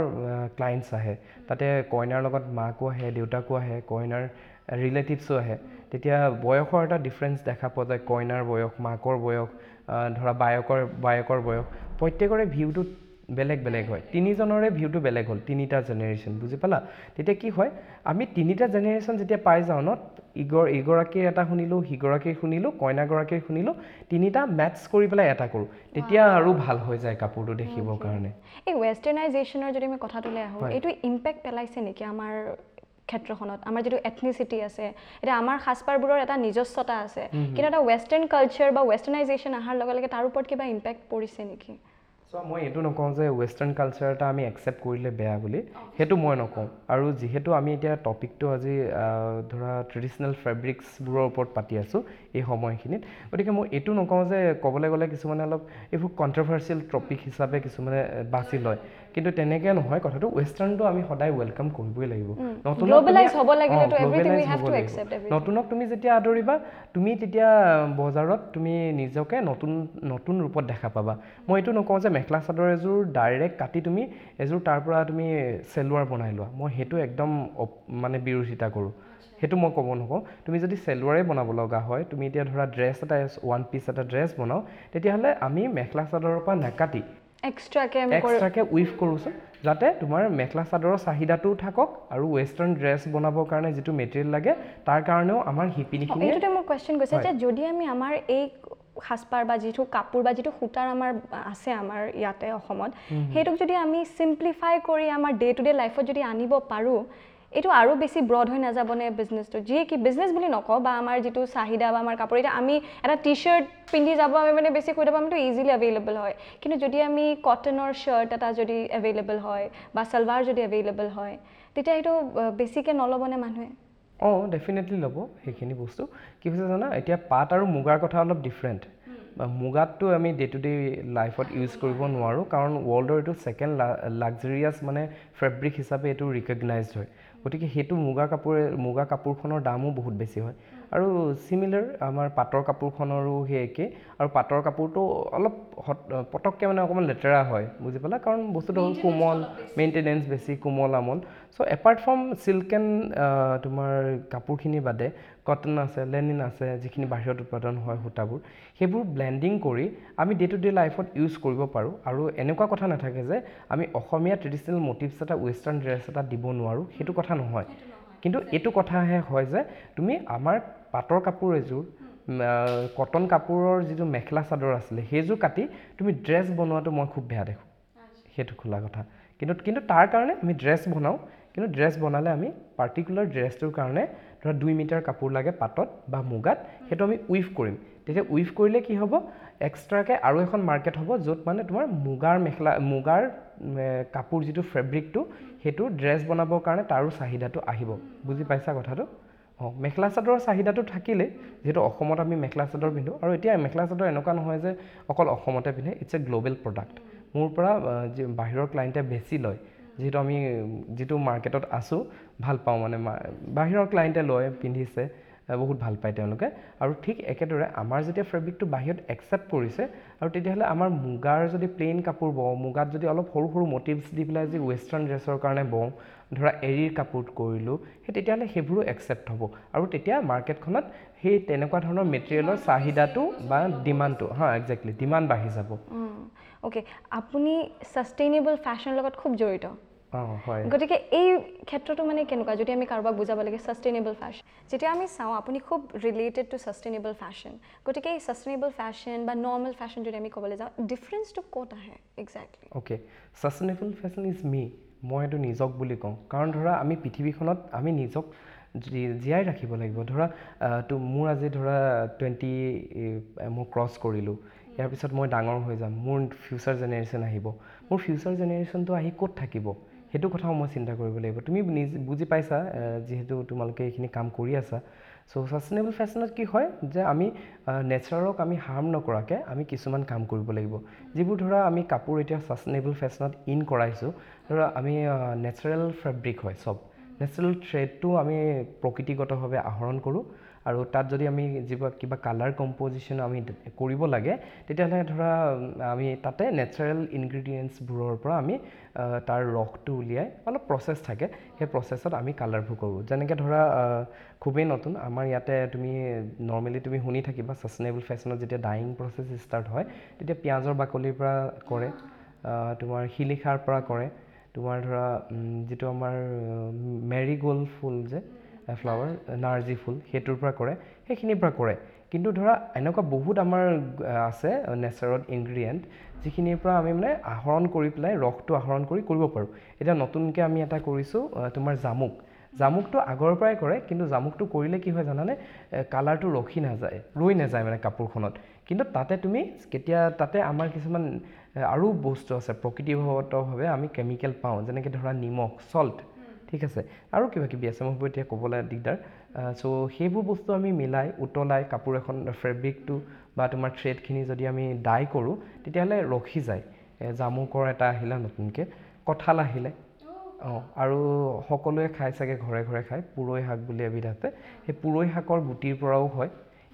ক্লায়েণ্টছ আহে। তাতে কইনাৰ লগত মাকো আহে, দেউতাকো আহে, কইনাৰ ৰিলেটিভছো আহে। তেতিয়া বয়সৰ এটা ডিফাৰেঞ্চ দেখা পোৱা যায়, কইনাৰ বয়স, মাকৰ বয়স, ধৰা বায়েকৰ বয়স, প্ৰত্যেকৰে ভিউটো বেলেগ বেলেগ হয়, তিনিজনৰে ভিউটো বেলেগ হ'ল, তিনিটা জেনেৰেশ্যন, বুজি পালা? তেতিয়া কি হয়, আমি তিনিটা জেনেৰেশ্যন যেতিয়া পাই যাওঁ ন, ইগৰাকীৰ এটা শুনিলোঁ, সিগৰাকীৰ শুনিলোঁ, কইনাগৰাকীৰ শুনিলোঁ, তিনিটা মেটচ কৰি পেলাই এটা কৰোঁ, তেতিয়া আৰু ভাল হৈ যায় কাপোৰটো দেখিবৰ কাৰণে। এই ৱেষ্টাৰ্ণাইজেশ্যনৰ যদি আমি কথাটোলৈ আহোঁ, এইটো ইম্পেক্ট পেলাইছে নেকি আমাৰ ক্ষেত্ৰখনত? আমাৰ যিটো এথনিচিটি আছে, এতিয়া আমাৰ সাজপাৰবোৰৰ এটা নিজস্বতা আছে, কিন্তু এটা ৱেষ্টাৰ্ণ কালচাৰ বা ৱেষ্টাৰ্ণাইজেশ্যন অহাৰ লগে লগে তাৰ ওপৰত কিবা ইম্পেক্ট পৰিছে নেকি? চ' মই এইটো নকওঁ যে ৱেষ্টাৰ্ণ কালচাৰ এটা আমি একচেপ্ট কৰিলে বেয়া বুলি, সেইটো মই নকওঁ। আৰু যিহেতু আমি এতিয়া টপিকটো আজি ধৰা ট্ৰেডিশ্যনেল ফেব্ৰিক্সবোৰৰ ওপৰত পাতি আছোঁ এই সময়খিনিত, গতিকে মই এইটো নকওঁ যে ক'বলৈ গ'লে কিছুমানে অলপ এইবোৰ কণ্ট্ৰভাৰ্চিয়েল টপিক হিচাপে কিছুমানে বাছি লয়, কিন্তু তেনেকৈ নহয় কথাটো। ৱেষ্টাৰ্ণটো আমি সদায় welcome কৰিবই লাগিব। নতুনক তুমি যেতিয়া আদৰিবা, তুমি তেতিয়া বজাৰত তুমি নিজকে নতুন নতুন ৰূপত দেখা পাবা। মই এইটো নকওঁ যে মেখেলা চাদৰ এযোৰ ডাইৰেক্ট কাটি তুমি এযোৰ তাৰ পৰা তুমি চেলোৱাৰ বনাই লোৱা, মই সেইটো একদম মানে বিৰোধিতা কৰোঁ, সেইটো মই ক'ব নকওঁ। তুমি যদি চেলোৱাৰেই বনাব লগা হয়, তুমি এতিয়া ধৰা ড্ৰেছ এটা ওৱান পিচ এটা ড্ৰেছ বনাওঁ, তেতিয়াহ'লে আমি মেখেলা চাদৰৰ পৰা নাকাটি এক্সট্ৰাকৈ উইভ কৰোঁচোন, যাতে তোমাৰ মেখেলা চাদৰৰ চাহিদাটোও থাকক আৰু ৱেষ্টাৰ্ণ ড্ৰেছ বনাবৰ কাৰণে যিটো মেটেৰিয়েল লাগে তাৰ কাৰণেও আমাৰ শিপিনীখিনি। এইটোতে মোৰ কুৱেশ্যন গৈছে যে যদি আমি আমাৰ এই সাজপাৰ বা যিটো কাপোৰ বা যিটো সূতাৰ আমাৰ আছে আমাৰ ইয়াতে অসমত, সেইটোক যদি আমি চিম্প্লিফাই কৰি আমাৰ ডে টু ডে লাইফত যদি আনিব পাৰোঁ, এইটো আৰু বেছি ব্ৰড হৈ নাযাবনে বিজনেছটো? যিয়ে কি বিজনেছ বুলি নকওঁ, বা আমাৰ যিটো চাহিদা বা আমাৰ কাপোৰ, এতিয়া আমি এটা টি শ্বাৰ্ট পিন্ধি যাব আমি মানে বেছি কৈ থাকোঁ, আমিতো ইজিলি এভেইলেবল হয়, কিন্তু যদি আমি কটনৰ শ্বাৰ্ট এটা যদি এভেইলেবল হয় বা ছালৱাৰ যদি এভেইলেবল হয়, তেতিয়া সেইটো বেছিকৈ নল'বনে মানুহে? অঁ, ডেফিনেটলি ল'ব সেইখিনি বস্তু। কি হৈছে জানা, এতিয়া পাট আৰু মুগাৰ কথা অলপ ডিফাৰেণ্ট। মুগাতটো আমি ডে টু ডে লাইফত ইউজ কৰিব নোৱাৰোঁ, কাৰণ ৱৰ্ল্ডৰ এইটো ছেকেণ্ড লাক্সাৰিয়াছ মানে ফেব্ৰিক হিচাপে এইটো ৰিকগনাইজড হয়, গতিকে সেইটো মুগা কাপোৰখনৰ দামো বহুত বেছি হয়। আৰু চিমিলাৰ আমাৰ পাটৰ কাপোৰখনৰো সেই একেই, আৰু পাটৰ কাপোৰটো অলপ পটককৈ মানে অকণমান লেতেৰা হয়, বুজি পালা? কাৰণ বস্তুটো হ'ল কোমল, মেইনটেনেঞ্চ বেছি, কোমল আমল। So apart from silk and তোমাৰ কাপোৰখিনি বাদে কটন আছে, লেনিন আছে, যিখিনি বাহিৰত উৎপাদন হয় সূতাবোৰ, সেইবোৰ ব্লেণ্ডিং কৰি আমি ডে টু ডে লাইফত ইউজ কৰিব পাৰোঁ। আৰু এনেকুৱা কথা নাথাকে যে আমি অসমীয়া ট্ৰেডিশ্যনেল মটিভছ এটা ৱেষ্টাৰ্ণ ড্ৰেছ এটা দিব নোৱাৰোঁ, সেইটো কথা নহয়। কিন্তু এইটো কথাহে হয় যে তুমি আমাৰ পাটৰ কাপোৰ এযোৰ, কটন কাপোৰৰ যিটো মেখেলা চাদৰ আছিলে সেইযোৰ কাটি তুমি ড্ৰেছ বনোৱাটো মই খুব বেয়া দেখোঁ, সেইটো খোলা কথা। কিন্তু কিন্তু তাৰ কাৰণে আমি ড্ৰেছ বনাওঁ, কিন্তু ড্ৰেছ বনালে আমি পাৰ্টিকুলাৰ ড্ৰেছটোৰ কাৰণে ধৰা 2 মিটাৰ কাপোৰ লাগে পাটত বা মুগাত, সেইটো আমি উইভ কৰিম। তেতিয়া উইভ কৰিলে কি হ'ব, এক্সট্ৰাকৈ আৰু এখন মাৰ্কেট হ'ব য'ত মানে তোমাৰ মুগাৰ মেখেলা, মুগাৰ কাপোৰ যিটো ফেব্ৰিকটো, সেইটো ড্ৰেছ বনাবৰ কাৰণে তাৰো চাহিদাটো আহিব। বুজি পাইছা কথাটো? অঁ, মেখেলা চাদৰৰ চাহিদাটো থাকিলেই, যিহেতু অসমত আমি মেখেলা চাদৰ পিন্ধোঁ, আৰু এতিয়া মেখেলা চাদৰ এনেকুৱা নহয় যে অকল অসমতে পিন্ধে, it's a global product. মোৰ পৰা বাহিৰৰ ক্লাইণ্টে বেছি লয়, যিহেতু আমি যিটো মাৰ্কেটত আছোঁ ভাল পাওঁ, মানে বাহিৰৰ ক্লাইণ্টে লয়, পিন্ধিছে, বহুত ভাল পায় তেওঁলোকে। আৰু ঠিক একেদৰে আমাৰ যেতিয়া ফেব্ৰিকটো বাহিৰত একচেপ্ট কৰিছে, আৰু তেতিয়াহ'লে আমাৰ মুগাৰ যদি প্লেইন কাপোৰ বওঁ, মুগাত যদি অলপ সৰু সৰু মটিভছ দি পেলাই যদি ৱেষ্টাৰ্ণ ড্ৰেছৰ কাৰণে বওঁ, ধৰা এৰীৰ কাপোৰ কৰিলোঁ, সেই তেতিয়াহ'লে সেইবোৰো একচেপ্ট হ'ব। আৰু তেতিয়া মাৰ্কেটখনত সেই তেনেকুৱা ধৰণৰ মেটেৰিয়েলৰ চাহিদাটো বা ডিমাণ্ডটো, হা একজেক্টলি ডিমাণ্ড বাঢ়ি যাব। অ'কে, আপুনি ছাষ্টেইনেবল ফেশ্বনৰ লগত খুব জড়িত, গতিকে এই ক্ষেত্ৰটো মানে কেনেকুৱা যদি আমি কাৰোবাক বুজাব লাগে ছাষ্টেইনেবল ফেশ্বন? যেতিয়া আমি চাওঁ আপুনি খুব ৰিলেটেড টু ছাষ্টেইনেবল ফেশ্বন, গতিকে এই ছাষ্টেইনেবল ফেশ্বন বা নৰ্মেল ফেশ্বন যদি আমি ক'বলৈ যাওঁ, ডিফাৰেঞ্চটো ক'ত আহে exactly? Okay, sustainable fashion is me, মই এইটো নিজক বুলি কওঁ। কাৰণ ধৰা আমি পৃথিৱীখনত আমি নিজক জীয়াই ৰাখিব লাগিব। ধৰা তো মোৰ আজি ধৰা 20 মই ক্ৰছ কৰিলোঁ, ইয়াৰ পিছত মই ডাঙৰ হৈ যাম, মোৰ ফিউচাৰ জেনেৰেশ্যন আহিব, মোৰ ফিউচাৰ জেনেৰেশ্যনটো আহি ক'ত থাকিব সেইটো কথাও মই চিন্তা কৰিব লাগিব। তুমি নিজে বুজি পাইছা যিহেতু তোমালোকে এইখিনি কাম কৰি আছা। চ' ছাষ্টেইনেবল ফেশ্বনত কি হয় যে আমি নেচাৰক আমি হাৰ্ম নকৰাকৈ আমি কিছুমান কাম কৰিব লাগিব, যিবোৰ ধৰা আমি কাপোৰ এতিয়া ছাষ্টেইনেবল ফেশ্বনত ইন কৰাইছোঁ। ধৰা আমি নেচাৰেল ফেব্ৰিক হয়, চব নেচাৰেল থ্ৰেডটো আমি প্ৰকৃতিগতভাৱে আহৰণ কৰোঁ, আৰু তাত যদি আমি যিবোৰ কিবা কালাৰ কম্প'জিশ্যন আমি কৰিব লাগে, তেতিয়াহ'লে ধৰা আমি তাতে নেচাৰেল ইনগ্ৰিডিয়েণ্টছবোৰৰ পৰা আমি তাৰ ৰসটো উলিয়াই অলপ প্ৰচেছ থাকে, সেই প্ৰচেছত আমি কালাৰবোৰ কৰোঁ। যেনেকৈ ধৰা খুবেই নতুন আমাৰ ইয়াতে, তুমি নৰ্মেলি তুমি শুনি থাকিবা ছাষ্টেইনেবল ফেশ্বনত যেতিয়া ডাইং প্ৰচেছ ষ্টাৰ্ট হয়, তেতিয়া পিঁয়াজৰ বাকলিৰ পৰা কৰে, তোমাৰ শিলিখাৰ পৰা কৰে, তোমাৰ ধৰা যিটো আমাৰ মেৰিগ'ল্ড ফুল যে ফ্লাৱাৰ, নাৰ্জী ফুল, সেইটোৰ পৰা কৰে, সেইখিনিৰ পৰা কৰে। কিন্তু ধৰা এনেকুৱা বহুত আমাৰ আছে নেচাৰত ইনগ্ৰিডিয়েণ্ট, যিখিনিৰ পৰা আমি মানে আহৰণ কৰি পেলাই ৰসটো আহৰণ কৰি কৰিব পাৰোঁ। এতিয়া নতুনকৈ আমি এটা কৰিছোঁ, তোমাৰ জামুক। জামুকটো আগৰ পৰাই কৰে, কিন্তু জামুকটো কৰিলে কি হয় জানানে, কালাৰটো ৰখি নাযায়, ৰৈ নাযায় মানে কাপোৰখনত। কিন্তু তাতে তুমি কেতিয়া তাতে আমাৰ কিছুমান আৰু বস্তু আছে, প্ৰকৃতিগতভাৱে আমি কেমিকেল পাওঁ, যেনেকৈ ধৰা নিমখ, চল্ট, ঠিক আছে, আৰু কিবা কিবি আছে, মই সেইবোৰ এতিয়া ক'বলৈ দিগদাৰ। চ' সেইবোৰ বস্তু আমি মিলাই উতলাই কাপোৰ এখন ফেব্ৰিকটো বা তোমাৰ থ্ৰেডখিনি যদি আমি ডাই কৰোঁ, তেতিয়াহ'লে ৰখি যায়। জামুকৰ এটা আহিলে নতুনকৈ, কঁঠাল আহিলে, অঁ, আৰু সকলোৱে খাই চাগে, ঘৰে ঘৰে খায়, পুৰৈ শাক বুলি এবিধ আছে, সেই পুৰৈ শাকৰ গুটিৰ পৰাও হয়।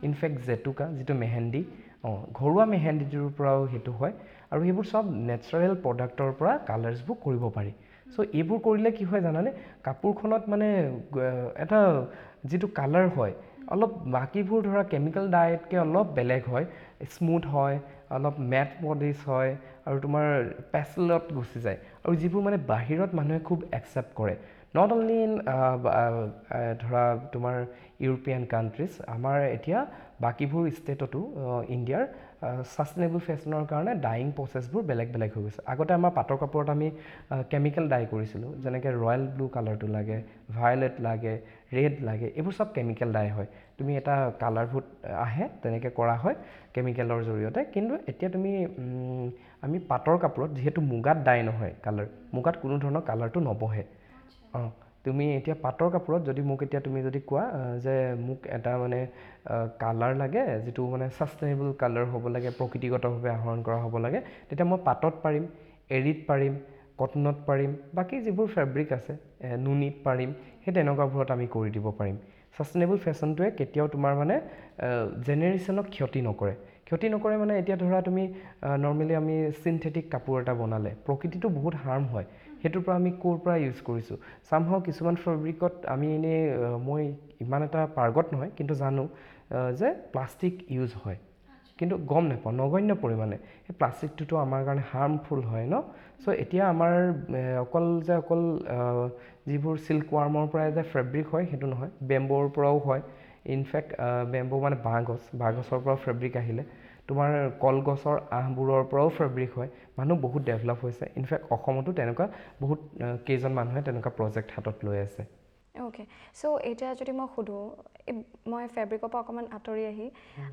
ইনফেক্ট জেতুকা যিটো মেহেন্দি, অঁ, ঘৰুৱা মেহেন্দিটোৰ পৰাও সেইটো হয়। আৰু সেইবোৰ চব নেচাৰেল প্ৰডাক্টৰ পৰা কালাৰ্ছবোৰ কৰিব পাৰি। চ' এইবোৰ কৰিলে কি হয় জানানে, কাপোৰখনত মানে এটা যিটো কালাৰ হয়, অলপ বাকীবোৰ ধৰা কেমিকেল ডাইতকৈ অলপ বেলেগ হয়, স্মুথ হয়, অলপ মেট পলিচ হয়, আৰু তোমাৰ পেচেলত গুচি যায়, আৰু যিবোৰ মানে বাহিৰত মানুহে খুব একচেপ্ট কৰে, not only in ধৰা তোমাৰ ইউৰোপীয়ান কাণ্ট্ৰিজ, আমাৰ এতিয়া বাকীবোৰ ষ্টেটতো ইণ্ডিয়াৰ ছাষ্টেইনেবল ফেশ্বনৰ কাৰণে ডায়িং প্ৰচেছবোৰ বেলেগ বেলেগ হৈ গৈছে। আগতে আমাৰ পাটৰ কাপোৰত আমি কেমিকেল ডাই কৰিছিলোঁ, যেনেকৈ ৰয়েল ব্লু কালাৰটো লাগে, ভায়লেট লাগে, ৰেড লাগে, এইবোৰ চব কেমিকেল ডাই হয়। তুমি এটা কালাৰবোৰ আহে, তেনেকৈ কৰা হয় কেমিকেলৰ জৰিয়তে। কিন্তু এতিয়া তুমি আমি পাটৰ কাপোৰত যিহেতু মুগাত ডাই নহয় কালাৰ, মুগাত কোনো ধৰণৰ কালাৰটো নবহে। অঁ, তুমি এতিয়া পাটৰ কাপোৰত যদি মোক এতিয়া তুমি যদি কোৱা যে মোক এটা মানে কালাৰ লাগে যিটো মানে ছাষ্টেইনেবল কালাৰ হ'ব লাগে, প্ৰকৃতিগতভাৱে আহৰণ কৰা হ'ব লাগে, তেতিয়া মই পাটত পাৰিম, এৰীত পাৰিম, কটনত পাৰিম, বাকী যিবোৰ ফেব্ৰিক আছে নুনিত পাৰিম, সেই তেনেকুৱাবোৰত আমি কৰি দিব পাৰিম। ছাষ্টেইনেবল ফেশ্বনটোৱে কেতিয়াও তোমাৰ মানে জেনেৰেশ্যনক ক্ষতি নকৰে। ক্ষতি নকৰে মানে এতিয়া ধৰা তুমি নৰ্মেলি আমি চিনথেটিক কাপোৰ এটা বনালে প্ৰকৃতিটো বহুত হাৰ্ম হয়, সেইটোৰ পৰা আমি ক'ৰ পৰা ইউজ কৰিছোঁ। চামহাও কিছুমান ফেব্ৰিকত আমি এনেই, মই ইমান এটা পাৰ্গত নহয়, কিন্তু জানো যে প্লাষ্টিক ইউজ হয়, কিন্তু গম নাপাওঁ, নগণ্য পৰিমাণে। সেই প্লাষ্টিকটোতো আমাৰ কাৰণে হাৰ্মফুল হয় ন। চ' এতিয়া আমাৰ অকল যে অকল যিবোৰ চিল্ক ৱাৰ্মৰ পৰাই যে ফেব্ৰিক হয় সেইটো নহয়, বেম্ব'ৰ পৰাও হয়। ইনফেক্ট বেম্ব' মানে বাঁহগছ, বাঁহগছৰ পৰাও ফেব্ৰিক আহিলে, তোমাৰ কলগছৰ আঁহবোৰৰ পৰাও ফেব্ৰিক হয়। মানুহ বহুত ডেভেলপ হৈছে। ইনফেক্ট অসমতো তেনেকুৱা বহুত কেইজন মানুহে তেনেকুৱা প্ৰজেক্ট হাতত লৈ আছে। অ'কে, চ' এতিয়া যদি মই সোধোঁ, মই ফেব্ৰিকৰ পৰা অকণমান আঁতৰি আহি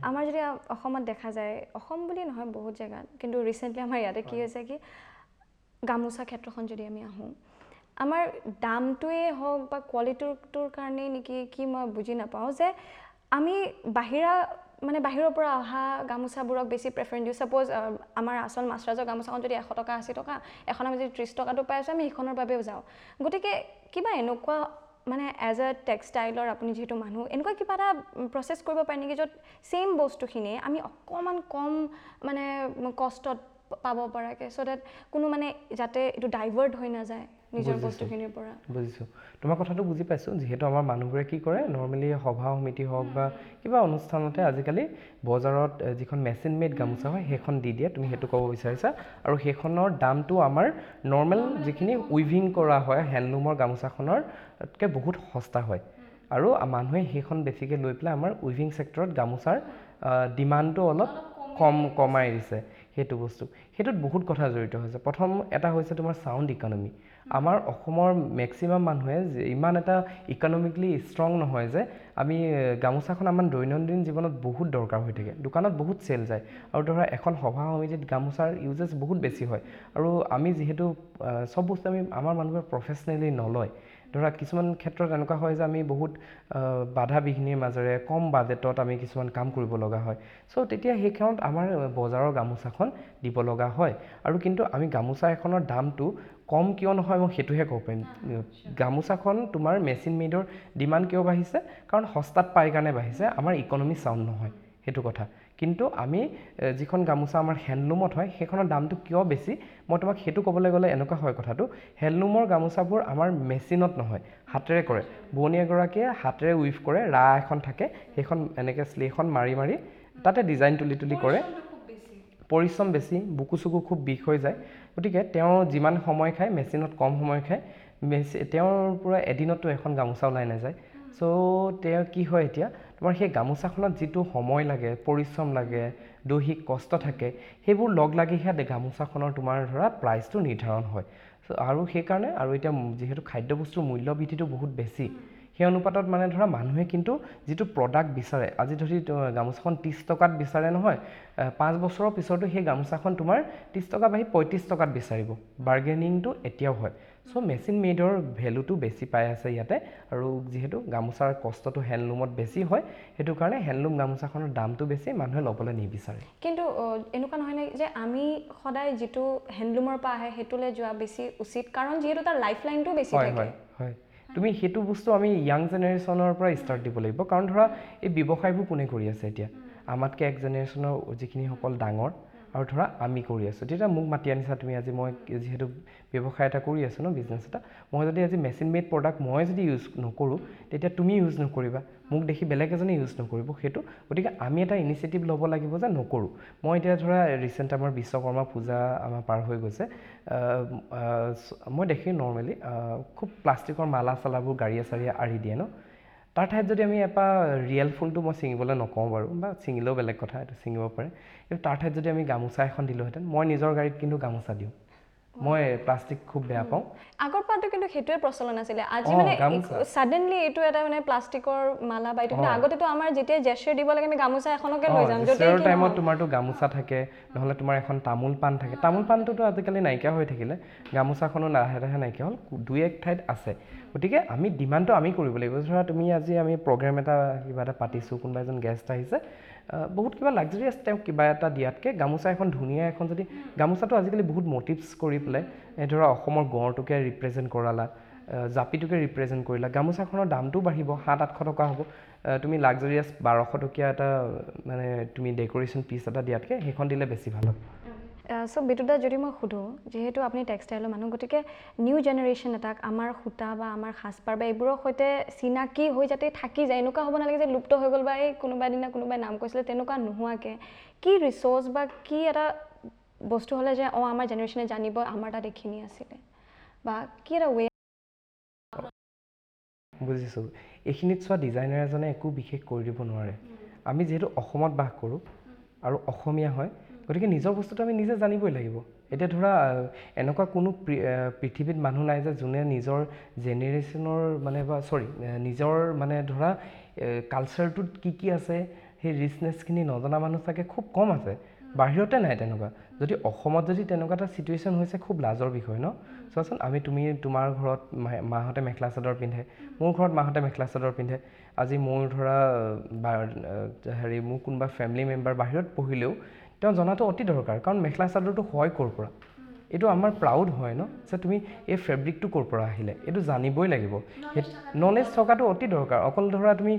আমাৰ যদি অসমত দেখা যায়, অসম বুলি নহয় বহুত জেগাত, কিন্তু ৰিচেণ্টলি আমাৰ ইয়াতে কি হৈছে কি, গামোচা ক্ষেত্ৰখন যদি আমি আহোঁ, আমাৰ দামটোৱেই হওক বা কোৱালিটিটোৰ কাৰণেই নেকি কি মই বুজি নাপাওঁ যে আমি বাহিৰা মানে বাহিৰৰ পৰা অহা গামোচাবোৰক বেছি প্ৰেফাৰেঞ্চ দিওঁ। ছাপ'জ আমাৰ আচল মাছৰাজৰ গামোচাখন যদি 100 টকা, 80 টকা, এখন আমি যদি 30 টকাটো পাই আছোঁ, আমি সেইখনৰ বাবেও যাওঁ। গতিকে কিবা এনেকুৱা মানে এজ এ টেক্সটাইলৰ আপুনি যিহেতু মানুহ, এনেকুৱা কিবা এটা প্ৰচেছ কৰিব পাৰি নেকি য'ত ছেইম বস্তুখিনিয়ে আমি অকণমান কম মানে কষ্টত পাব পৰাকৈ, চ' ডেট কোনো মানে যাতে এইটো ডাইভাৰ্ট হৈ নাযায় নিজৰ বস্তুখিনিৰ পৰা? বুজিছোঁ, তোমাৰ কথাটো বুজি পাইছোঁ। যিহেতু আমাৰ মানুহবোৰে কি কৰে, নৰ্মেলি সভা সমিতি হওক বা কিবা অনুষ্ঠানতে আজিকালি বজাৰত যিখন মেচিন মেড গামোচা হয় সেইখন দি দিয়ে, তুমি সেইটো ক'ব বিচাৰিছা। আৰু সেইখনৰ দামটো আমাৰ নৰ্মেল যিখিনি উইভিং কৰা হয় হেণ্ডলুমৰ গামোচাখনৰতকৈ বহুত সস্তা হয়, আৰু মানুহে সেইখন বেছিকৈ লৈ পেলাই আমাৰ উইভিং ছেক্টৰত গামোচাৰ ডিমাণ্ডটো অলপ কমাই দিছে। সেইটো বস্তু, সেইটোত বহুত কথা জড়িত হৈছে। প্ৰথম এটা হৈছে তোমাৰ চাউণ্ড ইকনমি। আমাৰ অসমৰ মেক্সিমাম মানুহে ইমান এটা ইকনমিকেলি ষ্ট্ৰং নহয় যে আমি গামোচাখন আমাৰ দৈনন্দিন জীৱনত বহুত দৰকাৰ হৈ থাকে, দোকানত বহুত চেল যায়, আৰু ধৰা এখন সভা সমিতিত গামোচাৰ ইউজেছ বহুত বেছি হয়। আৰু আমি যিহেতু চব বস্তু আমি আমাৰ মানুহবোৰে প্ৰফেচনেলি নলয়, ধৰা কিছুমান ক্ষেত্ৰত এনেকুৱা হয় যে আমি বহুত বাধা বিঘিনিৰ মাজেৰে কম বাজেটত আমি কিছুমান কাম কৰিব লগা হয়। চ' তেতিয়া সেইখনত আমাৰ বজাৰৰ গামোচাখন দিব লগা হয়। আৰু কিন্তু আমি গামোচা এখনৰ দামটো কম কিয় নহয়, মই সেইটোহে ক'ব পাৰিম। গামোচাখন তোমাৰ মেচিন মেডৰ ডিমাণ্ড কিয় বাঢ়িছে? কাৰণ সস্তাত পাই কাৰণে বাঢ়িছে, আমাৰ ইকনমি চাউণ্ড নহয়, সেইটো কথা। কিন্তু আমি যিখন গামোচা আমাৰ হেণ্ডলুমত হয় সেইখনৰ দামটো কিয় বেছি, মই তোমাক সেইটো ক'বলৈ গ'লে এনেকুৱা হয় কথাটো, হেণ্ডলুমৰ গামোচাবোৰ আমাৰ মেচিনত নহয়, হাতেৰে কৰে। বোৱনী এগৰাকীয়ে হাতেৰে উইভ কৰে, ৰা এখন থাকে, সেইখন এনেকৈ শ্লেখন মাৰি মাৰি তাতে ডিজাইন তুলি তুলি কৰে। পৰিশ্ৰম বেছি, বুকু চুকু খুব বিষ হৈ যায়। গতিকে তেওঁ যিমান সময় খায়, মেচিনত কম সময় খায়। তেওঁৰ পৰা এদিনততো এখন গামোচা ওলাই নাযায়। চ' তেওঁ কি হয়, এতিয়া তোমাৰ সেই গামোচাখনত যিটো সময় লাগে, পৰিশ্ৰম লাগে, দৈহিক কষ্ট থাকে, সেইবোৰ লগ লাগিহে গামোচাখনৰ তোমাৰ ধৰা প্ৰাইচটো নিৰ্ধাৰণ হয়। চ' আৰু সেইকাৰণে আৰু এতিয়া যিহেতু খাদ্যবস্তুৰ মূল্য বৃদ্ধিটো বহুত বেছি, সেই অনুপাতত মানে ধৰা মানুহে কিন্তু যিটো প্ৰডাক্ট বিচাৰে, আজি ধৰি গামোচাখন 30 টকাত বিচাৰে নহয়, 5 বছৰৰ পিছতো সেই গামোচাখন তোমাৰ 30 টকা বাঢ়ি 35 টকাত বিচাৰিব। বাৰ্গেনিংটো এতিয়াও হয়। চ' মেচিন মেডৰ ভেলুটো বেছি পাই আছে ইয়াতে। আৰু যিহেতু গামোচাৰ কষ্টটো হেণ্ডলুমত বেছি হয়, সেইটো কাৰণে হেণ্ডলুম গামোচাখনৰ দামটো বেছি, মানুহে ল'বলৈ নিবিচাৰে। কিন্তু এনেকুৱা নহয় নে যে আমি সদায় যিটো হেণ্ডলুমৰ পৰা আহে সেইটোলৈ যোৱা বেছি উচিত, কাৰণ যিহেতু তাৰ লাইফ লাইনটো বেছি হয় থাকে? হয় হয়, তুমি সেইটো বস্তু আমি য়াং জেনেৰেশ্যনৰ পৰা ষ্টাৰ্ট দিব লাগিব। কাৰণ ধৰা এই ব্যৱসায়বোৰ কোনে কৰি আছে এতিয়া? আমাতকৈ এক জেনেৰেশ্যনৰ যিখিনিসকল ডাঙৰ আৰু ধৰা আমি কৰি আছোঁ। তেতিয়া মোক মাতি আনিছা তুমি আজি, মই যিহেতু ব্যৱসায় এটা কৰি আছোঁ ন, বিজনেছ এটা, মই যদি আজি মেচিন মেড প্ৰডাক্ট মই যদি ইউজ নকৰোঁ, তেতিয়া তুমি ইউজ নকৰিবা, মোক দেখি বেলেগ এজনে ইউজ নকৰিব সেইটো। গতিকে আমি এটা ইনিচিয়েটিভ ল'ব লাগিব যে নকৰোঁ। মই এতিয়া ধৰা ৰিচেণ্ট আমাৰ বিশ্বকৰ্মা পূজা আমাৰ পাৰ হৈ গৈছে, মই দেখি নৰ্মেলি খুব প্লাষ্টিকৰ মালা চালাবোৰ গাড়ীয়ে চাড়ীয়ে আঁৰি দিয়ে ন। তাৰ ঠাইত যদি আমি এপাহ ৰিয়েল ফুলটো মই ছিঙিবলৈ নকওঁ বাৰু, বা ছিঙিলেও বেলেগ কথা, এইটো ছিঙিব পাৰে, কিন্তু তাৰ ঠাইত যদি আমি গামোচা এখন দিলোঁহেঁতেন, মই নিজৰ গাড়ীত কিন্তু গামোচা দিওঁ, মই প্লাষ্টিক খুব বেয়া পাওঁ। আগৰ পৰাতো কিন্তু সেইটোৱে প্ৰচলন আছিলে। আজি মানে গামোচা। ছাডেনলি এইটো এটা মানে প্লাষ্টিকৰ মালা বা এইটো, কিন্তু আগতেতো আমাৰ যেতিয়া জেচাৰ দিব লাগে আমি গামোচা এখনকে লৈ যাম, য'তেই জেচাৰৰ কি টাইমত নহওক। তোমাৰতো গামোচা থাকে, নহ'লে তোমাৰ এখন তামোল পাণ থাকে। তামোল পাণটোতো আজিকালি নাইকিয়া হৈ থাকিলে, গামোচাখনো লাহে লাহে নাইকিয়া হ'ল, দুই এক ঠাইত আছে। গতিকে আমি ডিমাণ্ডটো আমি কৰিব লাগিব। ধৰা তুমি আজি আমি প্ৰগ্ৰেম এটা কিবা এটা পাতিছোঁ, কোনোবা এজন গেষ্ট আহিছে, বহুত কিবা লাক্সাৰিয়াছ তেওঁক কিবা এটা দিয়াতকৈ গামোচা এখন ধুনীয়া এখন যদি, গামোচাটো আজিকালি বহুত মটিভছ কৰি পেলাই, এই ধৰা অসমৰ গঁড়টোকে ৰিপ্ৰেজেণ্ট কৰালা, জাপিটোকে ৰিপ্ৰেজেণ্ট কৰিলা, গামোচাখনৰ দামটোও বাঢ়িব, 700-800 টকা হ'ব। তুমি লাক্সাৰিয়াছ 1200 টকীয়া এটা মানে তুমি ডেক'ৰেশ্যন পিচ এটা দিয়াতকৈ সেইখন দিলে বেছি ভাল হ'ব। চ' বিতুদা, যদি মই সোধোঁ, যিহেতু আপুনি টেক্সটাইলৰ মানুহ, গতিকে নিউ জেনেৰেশ্যন এটাক আমাৰ সূতা বা আমাৰ সাজপাৰ বা এইবোৰৰ সৈতে চিনাকি হৈ যাতে থাকি যায়, এনেকুৱা হ'ব নালাগে যে লুপ্ত হৈ গ'ল বা এই কোনোবা দিনা কোনোবাই নাম কৈছিলে, তেনেকুৱা নোহোৱাকৈ কি ৰিচ'ৰ্চ বা কি এটা বস্তু হ'লে যে অঁ আমাৰ জেনেৰেশ্যনে জানিব আমাৰ তাত এইখিনি আছিলে, বা কি এটা ৱে? বুজিছোঁ। এইখিনিত চোৱা, ডিজাইনাৰ এজনে একো বিশেষ কৰি দিব নোৱাৰে। আমি যিহেতু অসমত বাস কৰোঁ আৰু অসমীয়া হয়, গতিকে নিজৰ বস্তুটো আমি নিজে জানিবই লাগিব। এতিয়া ধৰা এনেকুৱা কোনো পৃথিৱীত মানুহ নাই যে যোনে নিজৰ জেনেৰেশ্যনৰ মানে বা চৰি নিজৰ মানে ধৰা কালচাৰটোত কি কি আছে সেই ৰিচনেছখিনি নজনা মানুহ চাগে খুব কম আছে, বাহিৰতে নাই তেনেকুৱা। যদি অসমত যদি তেনেকুৱা এটা চিটুৱেশ্যন হৈছে, খুব লাজৰ বিষয় ন। চোৱাচোন, আমি তুমি তোমাৰ ঘৰত মাহঁতে মেখেলা চাদৰ পিন্ধে, মোৰ ঘৰত মাহঁতে মেখেলা চাদৰ পিন্ধে। আজি মোৰ ধৰা বা হেৰি মোৰ কোনোবা ফেমিলি মেম্বাৰ বাহিৰত পঢ়িলেও তেওঁ জনাটো অতি দৰকাৰ, কাৰণ মেখেলা চাদৰটো হয় ক'ৰ পৰা, এইটো আমাৰ প্ৰাউড হয় ন, যে তুমি এই ফেব্ৰিকটো ক'ৰ পৰা আহিলে এইটো জানিবই লাগিব। নলেজ থকাটো অতি দৰকাৰ। অকল ধৰা তুমি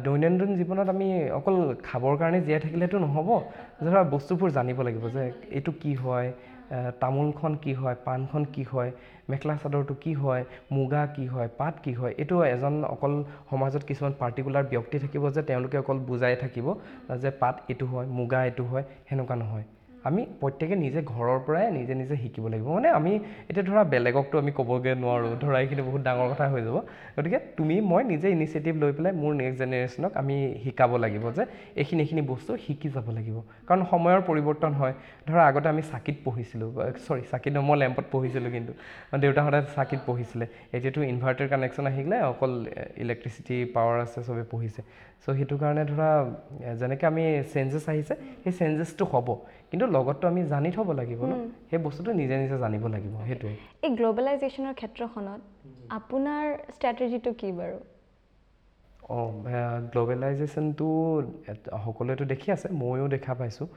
দৈনন্দিন জীৱনত আমি অকল খাবৰ কাৰণে জীয়াই থাকিলেতো নহ'ব, ধৰা বস্তুবোৰ জানিব লাগিব যে এইটো কি হয়, তামোলখন কি হয়, পাণখন কি হয়, মেখেলা চাদৰটো কি হয়, মুগা কি হয়, পাট কি হয়। এইটো এজন অকল সমাজত কিছুমান পাৰ্টিকুলাৰ ব্যক্তি থাকিব যে তেওঁলোকে অকল বুজাই থাকিব যে পাট এইটো হয়, মুগা এইটো হয়, সেনেকুৱা নহয়। আমি প্ৰত্যেকে নিজে ঘৰৰ পৰাই নিজে নিজে শিকিব লাগিব। মানে আমি এতিয়া ধৰা বেলেগকতো আমি ক'বগৈ নোৱাৰোঁ, ধৰা এইখিনি বহুত ডাঙৰ কথা হৈ যাব। গতিকে তুমি মই নিজে ইনিচিয়েটিভ লৈ পেলাই মোৰ নেক্সট জেনেৰেশ্যনক আমি শিকাব লাগিব যে এইখিনি এইখিনি বস্তু শিকি যাব লাগিব। কাৰণ সময়ৰ পৰিৱৰ্তন হয়। ধৰা আগতে আমি চাকিত পঢ়িছিলোঁ, চৰি চাকিত নহয়, মই লেম্পত পঢ়িছিলোঁ, কিন্তু দেউতাহঁতে চাকিত পঢ়িছিলে। এতিয়াতো ইনভাৰ্টাৰ কানেকশ্যন আহি গ'লে অকল ইলেক্ট্ৰিচিটি পাৱাৰ আছে, চবে পঢ়িছে। চ' সেইটো কাৰণে ধৰা যেনেকৈ আমি চেঞ্জেছ আহিছে, সেই চেঞ্জেছটো হ'ব, কিন্তু লগততো আমি জানি থ'ব লাগিব ন, সেই বস্তুটো নিজে নিজে জানিব লাগিব। সেইটোৱে। এই গ্ল'বেলাইজেশ্যনৰ ক্ষেত্ৰখনত আপোনাৰ ষ্ট্ৰেটেজিটো কি বাৰু? অঁ, গ্ল'বেলাইজেশ্যনটো সকলোৱেতো দেখি আছে, ময়ো দেখা পাইছোঁ।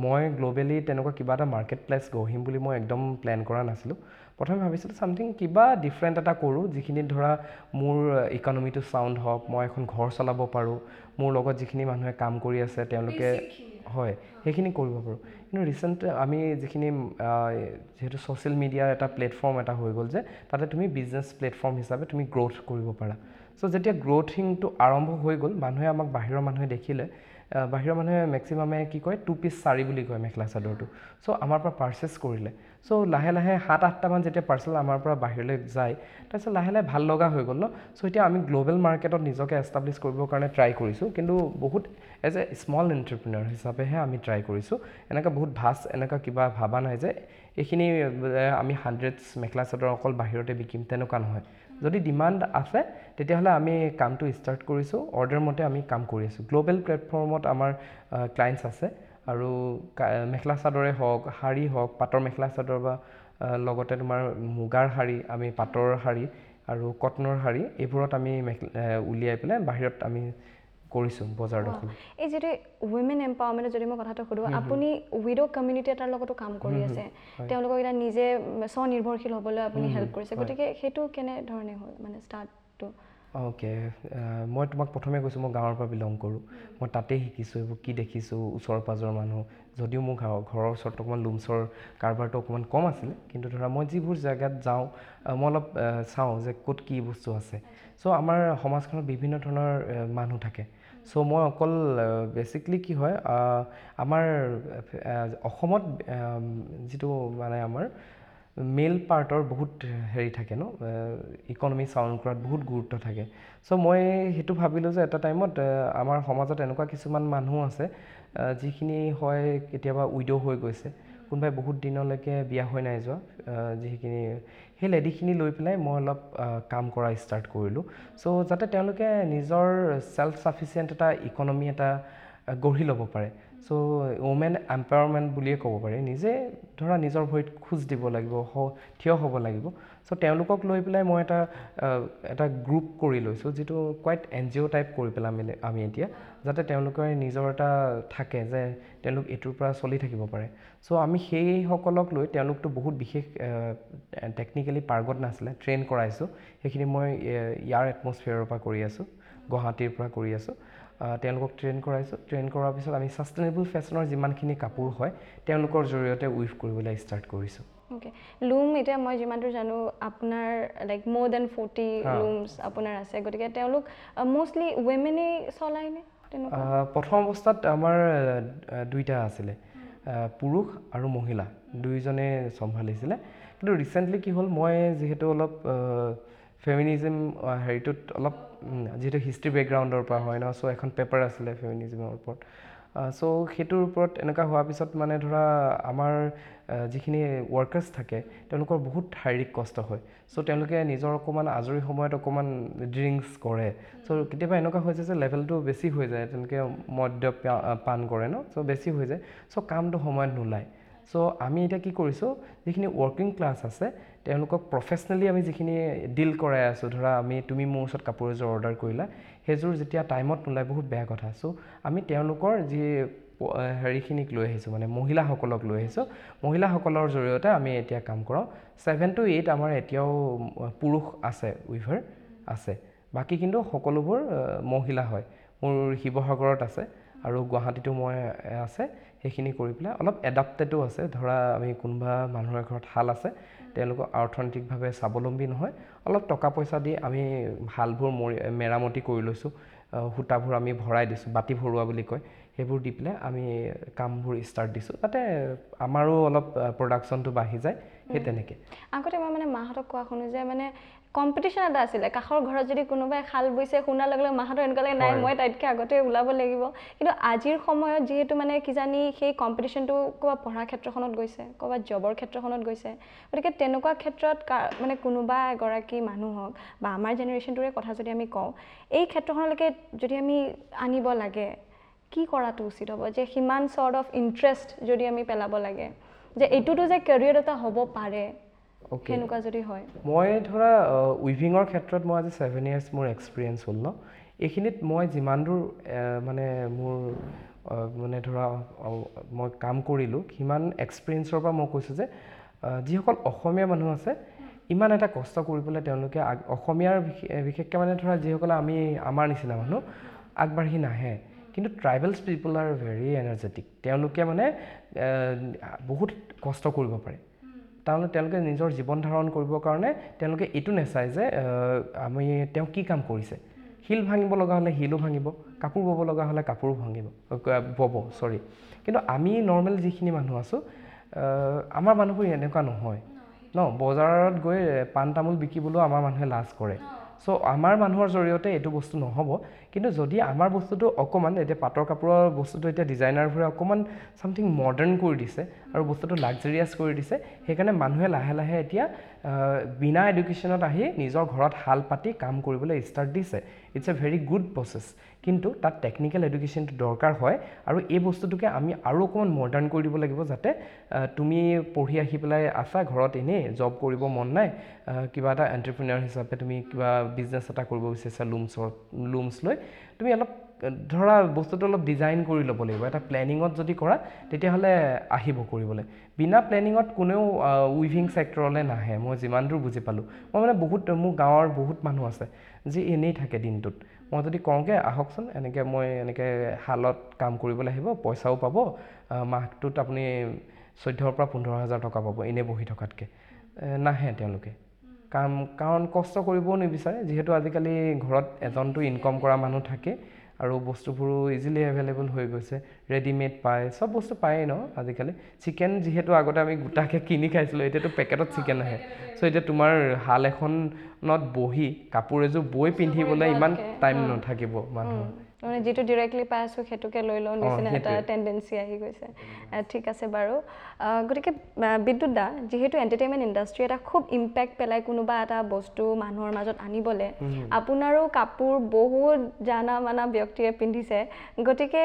মই গ্ল'বেলি তেনেকুৱা কিবা এটা মাৰ্কেট প্লেচ গঢ়িম বুলি মই একদম প্লেন কৰা নাছিলোঁ। প্ৰথমে ভাবিছিলোঁ ছামথিং কিবা ডিফাৰেণ্ট এটা কৰোঁ, যিখিনিত ধৰা মোৰ ইকনমিটো চাউণ্ড হওক, মই এখন ঘৰ চলাব পাৰোঁ, মোৰ লগত যিখিনি মানুহে কাম কৰি আছে তেওঁলোকে হয় সেইখিনি কৰিব পাৰোঁ। কিন্তু ৰিচেণ্ট আমি যিখিনি যিহেতু ছ'চিয়েল মিডিয়াৰ এটা প্লেটফৰ্ম এটা হৈ গ'ল যে তাতে তুমি বিজনেছ প্লেটফৰ্ম হিচাপে তুমি গ্ৰ'থ কৰিব পাৰা। চ' যেতিয়া গ্ৰ'থিংটো আৰম্ভ হৈ গ'ল, মানুহে আমাক বাহিৰৰ মানুহে দেখিলে বাহিৰৰ মানুহে মেক্সিমামে কি কয়, টু পিচ শাৰী বুলি কয় মেখেলা চাদৰটো। চ' আমাৰ পৰা পাৰ্চেছ কৰিলে। চ' লাহে লাহে 7-8টামান যেতিয়া পাৰ্চেল আমাৰ পৰা বাহিৰলৈ যায়, তাৰপিছত লাহে লাহে ভাল লগা হৈ গ'ল ন। চ' এতিয়া আমি গ্ল'বেল মাৰ্কেটত নিজকে এষ্টাব্লিছ কৰিবৰ কাৰণে ট্ৰাই কৰিছোঁ, কিন্তু বহুত এজ এ স্মল এণ্টাৰপ্ৰিনাৰ হিচাপেহে আমি ট্ৰাই কৰিছোঁ। এনেকুৱা বহুত ভাষ্ট এনেকুৱা কিবা ভবা নাই যে এইখিনি আমি হাণ্ড্ৰেডছ মেখেলা চাদৰ অকল বাহিৰতে বিকিম, তেনেকুৱা নহয়। যদি ডিমাণ্ড আছে তেতিয়াহ'লে আমি কামটো ষ্টাৰ্ট কৰিছোঁ, অৰ্ডাৰ মতে আমি কাম কৰি আছোঁ। গ্ল'বেল প্লেটফৰ্মত আমাৰ ক্লায়েণ্টছ আছে আৰু মেখেলা চাদৰে হওক, শাৰী হওক, পাটৰ মেখেলা চাদৰ বা লগতে তোমাৰ মুগাৰ শাৰী, আমি পাটৰ শাৰী আৰু কটনৰ শাৰী, এইবোৰত আমি মেখেলা উলিয়াই পেলাই বাহিৰত আমি কৰিছোঁ বজাৰ দখল। এই যিটো উইমেন এম্পাৱাৰমেণ্টৰ যদি মই কথাটো সোধোঁ, আপুনি উইড' কমিউনিটি এটাৰ লগতো কাম কৰি আছে, তেওঁলোকক এতিয়া নিজে স্বনিৰ্ভৰশীল হ'বলৈ আপুনি হেল্প কৰিছে, গতিকে সেইটো কেনেধৰণে হ'ল মানে ষ্টাৰ্টটো? অ'কে, মই তোমাক প্ৰথমে কৈছোঁ মই গাঁৱৰ পৰা বিলং কৰোঁ, মই তাতেই শিকিছোঁ এইবোৰ কি দেখিছোঁ ওচৰ পাঁজৰ মানুহ। যদিও মোৰ ঘৰৰ ওচৰত অকণমান লুমছৰ কাৰবাৰটো অকণমান কম আছিলে, কিন্তু ধৰা মই যিবোৰ জেগাত যাওঁ মই অলপ চাওঁ যে ক'ত কি বস্তু আছে। চ' আমাৰ সমাজখনত বিভিন্ন ধৰণৰ মানুহ থাকে। চ' মই অকল বেচিকলি কি হয়, আমাৰ অসমত যিটো মানে আমাৰ মেল পাৰ্টৰ বহুত হেৰি থাকে ন, ইকনমি চাউণ্ড কৰাত বহুত গুৰুত্ব থাকে। চ' মই সেইটো ভাবিলোঁ যে এটা টাইমত আমাৰ সমাজত এনেকুৱা কিছুমান মানুহ আছে যিখিনি হয় কেতিয়াবা উইড' হৈ গৈছে, কোনোবাই বহুত দিনলৈকে বিয়া হৈ নাই যোৱা, যিখিনি সেই লেডিখিনি লৈ পেলাই মই অলপ কাম কৰা ষ্টাৰ্ট কৰিলোঁ। চ' যাতে তেওঁলোকে নিজৰ ছেল্ফ ছাফিচিয়েণ্ট এটা ইকনমি এটা গঢ়ি ল'ব পাৰে। চ' ওমেন এম্পাৱাৰমেণ্ট বুলিয়ে ক'ব পাৰি। নিজে ধৰা নিজৰ ভৰিত খোজ দিব লাগিব, থিয় হ'ব লাগিব। চ' তেওঁলোকক লৈ পেলাই মই এটা গ্ৰুপ কৰি লৈছোঁ, যিটো কোৱাইট NGO type কৰি পেলাই আমি এতিয়া, যাতে তেওঁলোকে নিজৰ এটা থাকে যে তেওঁলোক এইটোৰ পৰা চলি থাকিব পাৰে। চ' আমি সেইসকলক লৈ, তেওঁলোকতো বহুত বিশেষ টেকনিকেলি পাৰ্গত নাছিলে, ট্ৰেইন কৰাইছোঁ। সেইখিনি মই ইয়াৰ এটমছফিয়াৰৰ পৰা কৰি আছোঁ, গুৱাহাটীৰ পৰা কৰি আছোঁ। তেওঁলোকক ট্ৰেইন কৰাইছোঁ। ট্ৰেইন কৰাৰ পিছত আমি ছাষ্টেইনেবল ফেশ্বনৰ যিমানখিনি কাপোৰ হয় তেওঁলোকৰ জৰিয়তে উইভ কৰিবলৈ ষ্টাৰ্ট কৰিছোঁ। অ'কে, লুম এতিয়া মই যিমান দূৰ জানো আপোনাৰ লাইক মোৰ then 40 looms আপোনাৰ আছে, গতিকে তেওঁলোক মষ্টলি উইমেনেই চলায়নে তেনেকুৱা? প্ৰথম অৱস্থাত আমাৰ দুইটা আছিলে, পুৰুষ আৰু মহিলা দুয়োজনে চম্ভালিছিলে। কিন্তু ৰিচেণ্টলি কি হ'ল, মই যিহেতু অলপ ফেমিনিজিম হেৰিটোত অলপ যিহেতু হিষ্ট্ৰী বেকগ্ৰাউণ্ডৰ পৰা হয় ন, চ' এখন পেপাৰ আছিলে ফেমিনিজিমৰ ওপৰত। চ' সেইটোৰ ওপৰত এনেকুৱা হোৱাৰ পিছত মানে ধৰা আমাৰ যিখিনি ৱৰ্কাৰ্ছ থাকে তেওঁলোকৰ বহুত শাৰীৰিক কষ্ট হয়। চ' তেওঁলোকে নিজৰ অকণমান আজৰি সময়ত অকণমান ড্ৰিংকছ কৰে। চ' কেতিয়াবা এনেকুৱা হৈছে যে লেভেলটো বেছি হৈ যায়, তেওঁলোকে মদ্য পান কৰে ন, চ' বেছি হৈ যায়। চ' কামটো সময়ত নোলায়। চ' আমি এতিয়া কি কৰিছোঁ, যিখিনি ৱৰ্কিং ক্লাছ আছে তেওঁলোকক প্ৰফেচনেলি আমি যিখিনি ডিল কৰাই আছোঁ, ধৰা আমি তুমি মোৰ ওচৰত কাপোৰ এযোৰ অৰ্ডাৰ কৰিলা, সেইযোৰ যেতিয়া টাইমত নোলায় বহুত বেয়া কথা। চ' আমি তেওঁলোকৰ যি হেৰিখিনিক লৈ আহিছোঁ, মানে মহিলাসকলক লৈ আহিছোঁ, মহিলাসকলৰ জৰিয়তে আমি এতিয়া কাম কৰাওঁ। 7 to 8 আমাৰ এতিয়াও পুৰুষ আছে, উইভাৰ আছে, বাকী কিন্তু সকলোবোৰ মহিলা হয়। মোৰ শিৱসাগৰত আছে আৰু গুৱাহাটীতো মই আছে। সেইখিনি কৰি পেলাই অলপ এডাপ্টেডো আছে, ধৰা আমি কোনোবা মানুহৰ ঘৰত শাল আছে, তেওঁলোকক অৰ্থনৈতিকভাৱে স্বাৱলম্বী নহয়, অলপ টকা পইচা দি আমি শালবোৰ মেৰামতি কৰি লৈছোঁ, সূতাবোৰ আমি ভৰাই দিছোঁ, বাতি ভৰোৱা বুলি কয়, সেইবোৰ দি পেলাই আমি কামবোৰ ষ্টাৰ্ট দিছোঁ, যাতে আমাৰো অলপ প্ৰডাকশ্যনটো বাঢ়ি যায়। সেই তেনেকৈ আগতে মই মানে মাহঁতক কোৱা শুনো যে মানে কম্পিটিশ্যন এটা আছিলে, কাষৰ ঘৰত যদি কোনোবাই শাল বৈছে শুনাৰ লগে লগে মাহঁতৰ এনেকুৱা লাগে নাই মই তাইতকৈ আগতে ওলাব লাগিব। কিন্তু আজিৰ সময়ত যিহেতু মানে কিজানি সেই কম্পিটিশ্যনটো ক'ৰবাত পঢ়াৰ ক্ষেত্ৰখনত গৈছে, ক'ৰবাত জবৰ ক্ষেত্ৰখনত গৈছে, গতিকে তেনেকুৱা ক্ষেত্ৰত মানে কোনোবা এগৰাকী মানুহক বা আমাৰ জেনেৰেশ্যনটোৰে কথা যদি আমি কওঁ, এই ক্ষেত্ৰখনলৈকে যদি আমি আনিব লাগে কি কৰাটো উচিত হ'ব, যে সিমান চৰ্ট অফ ইণ্টাৰেষ্ট যদি আমি পেলাব লাগে যে এইটোতো যে কেৰিয়াৰ এটা হ'ব পাৰে, সেনেকুৱা যদি হয়। মই ধৰা উইভিঙৰ ক্ষেত্ৰত মই আজি 7 ইয়াৰ্ছ মোৰ এক্সপিৰিয়েঞ্চ হ'ল ন, এইখিনিত মই যিমান দূৰ মানে মোৰ মানে ধৰা মই কাম কৰিলোঁ, সিমান এক্সপিৰিয়েঞ্চৰ পৰা মই কৈছোঁ যে যিসকল অসমীয়া মানুহ আছে ইমান এটা কষ্ট কৰি পেলাই তেওঁলোকে অসমীয়াৰ বিশেষকৈ মানে ধৰা যিসকলে আমি আমাৰ নিচিনা মানুহ আগবাঢ়ি নাহে, কিন্তু tribals people are very energetic, তেওঁলোকে মানে বহুত কষ্ট কৰিব পাৰে। তাৰমানে তেওঁলোকে নিজৰ জীৱন ধাৰণ কৰিবৰ কাৰণে তেওঁলোকে এইটো নেচায় যে আমি তেওঁ কি কাম কৰিছে, শিল ভাঙিব লগা হ'লে শিলো ভাঙিব, কাপোৰ বব লগা হ'লে কাপোৰো ভাঙিব, বব, চৰি। কিন্তু আমি নৰ্মেল যিখিনি মানুহ আছোঁ, আমাৰ মানুহবোৰ এনেকুৱা নহয় ন। বজাৰত গৈ পাণ তামোল বিকিবলৈও আমাৰ মানুহে লাজ কৰে। চ' আমাৰ মানুহৰ জৰিয়তে এইটো বস্তু নহ'ব। কিন্তু যদি আমাৰ বস্তুটো অকণমান, এতিয়া পাটৰ কাপোৰৰ বস্তুটো এতিয়া ডিজাইনাৰবোৰে অকণমান ছামথিং মডাৰ্ণ কৰি দিছে আৰু বস্তুটো লাক্সাৰিয়াছ কৰি দিছে, সেইকাৰণে মানুহে লাহে লাহে এতিয়া বিনা এডুকেশ্যনত আহি নিজৰ ঘৰত শাল পাতি কাম কৰিবলৈ ষ্টাৰ্ট দিছে। It's a very good process, কিন্তু তাত টেকনিকেল এডুকেশ্যনটো দৰকাৰ হয় আৰু এই বস্তুটোকে আমি আৰু অকণমান মডাৰ্ণ কৰি দিব লাগিব, যাতে তুমি পঢ়ি আহি পেলাই আছা ঘৰত, এনেই জব কৰিব মন নাই, কিবা এটা এণ্টাৰপ্ৰিনাৰ হিচাপে তুমি কিবা বিজনেছ এটা কৰিব বিচাৰিছা, লুমছ লৈ তুমি অলপ ধৰা বস্তুটো অলপ ডিজাইন কৰি ল'ব লাগিব। এটা প্লেনিঙত যদি কৰা তেতিয়াহ'লে আহিব কৰিবলৈ। বিনা প্লেনিঙত কোনেও উইভিং ছেক্টৰলৈ নাহে, মই যিমান দূৰ বুজি পালোঁ। মই মানে বহুত, মোৰ গাঁৱৰ বহুত মানুহ আছে যি এনেই থাকে দিনটোত। মই যদি কওঁগৈ আহকচোন এনেকৈ, মই এনেকৈ শালত কাম কৰিবলৈ আহিব, পইচাও পাব, মাহটোত আপুনি 14ৰ পৰা 15 হাজাৰ টকা পাব এনেই বহি থকাতকৈ, নাহে তেওঁলোকে কাম, কাৰণ কষ্ট কৰিবও নিবিচাৰে। যিহেতু আজিকালি ঘৰত এজনটো ইনকম কৰা মানুহ থাকে আৰু বস্তুবোৰো ইজিলি এভেইলেবল হৈ গৈছে, ৰেডিমেড পায়, চব বস্তু পায়েই ন আজিকালি। চিকেন যিহেতু আগতে আমি গোটাকৈ কিনি খাইছিলোঁ, এতিয়াতো পেকেটত চিকেন আহে। চ' এতিয়া তোমাৰ শাল এখনত বহি কাপোৰ এযোৰ বৈ পিন্ধিবলৈ ইমান টাইম নাথাকিব মানুহৰ। মানে যিটো ডিৰেক্টলি পাই আছোঁ সেইটোকে লৈ লওঁ নিচিনা এটা টেণ্ডেঞ্চি আহি গৈছে। ঠিক আছে বাৰু। গতিকে বিদ্যুৎ দা, যিহেতু এণ্টাৰটেইনমেণ্ট ইণ্ডাষ্ট্ৰি এটা খুব ইম্পেক্ট পেলাই কোনোবা এটা বস্তু মানুহৰ মাজত আনিবলৈ, আপোনাৰো কাপোৰ বহুত জানা মানা ব্যক্তিয়ে পিন্ধিছে, গতিকে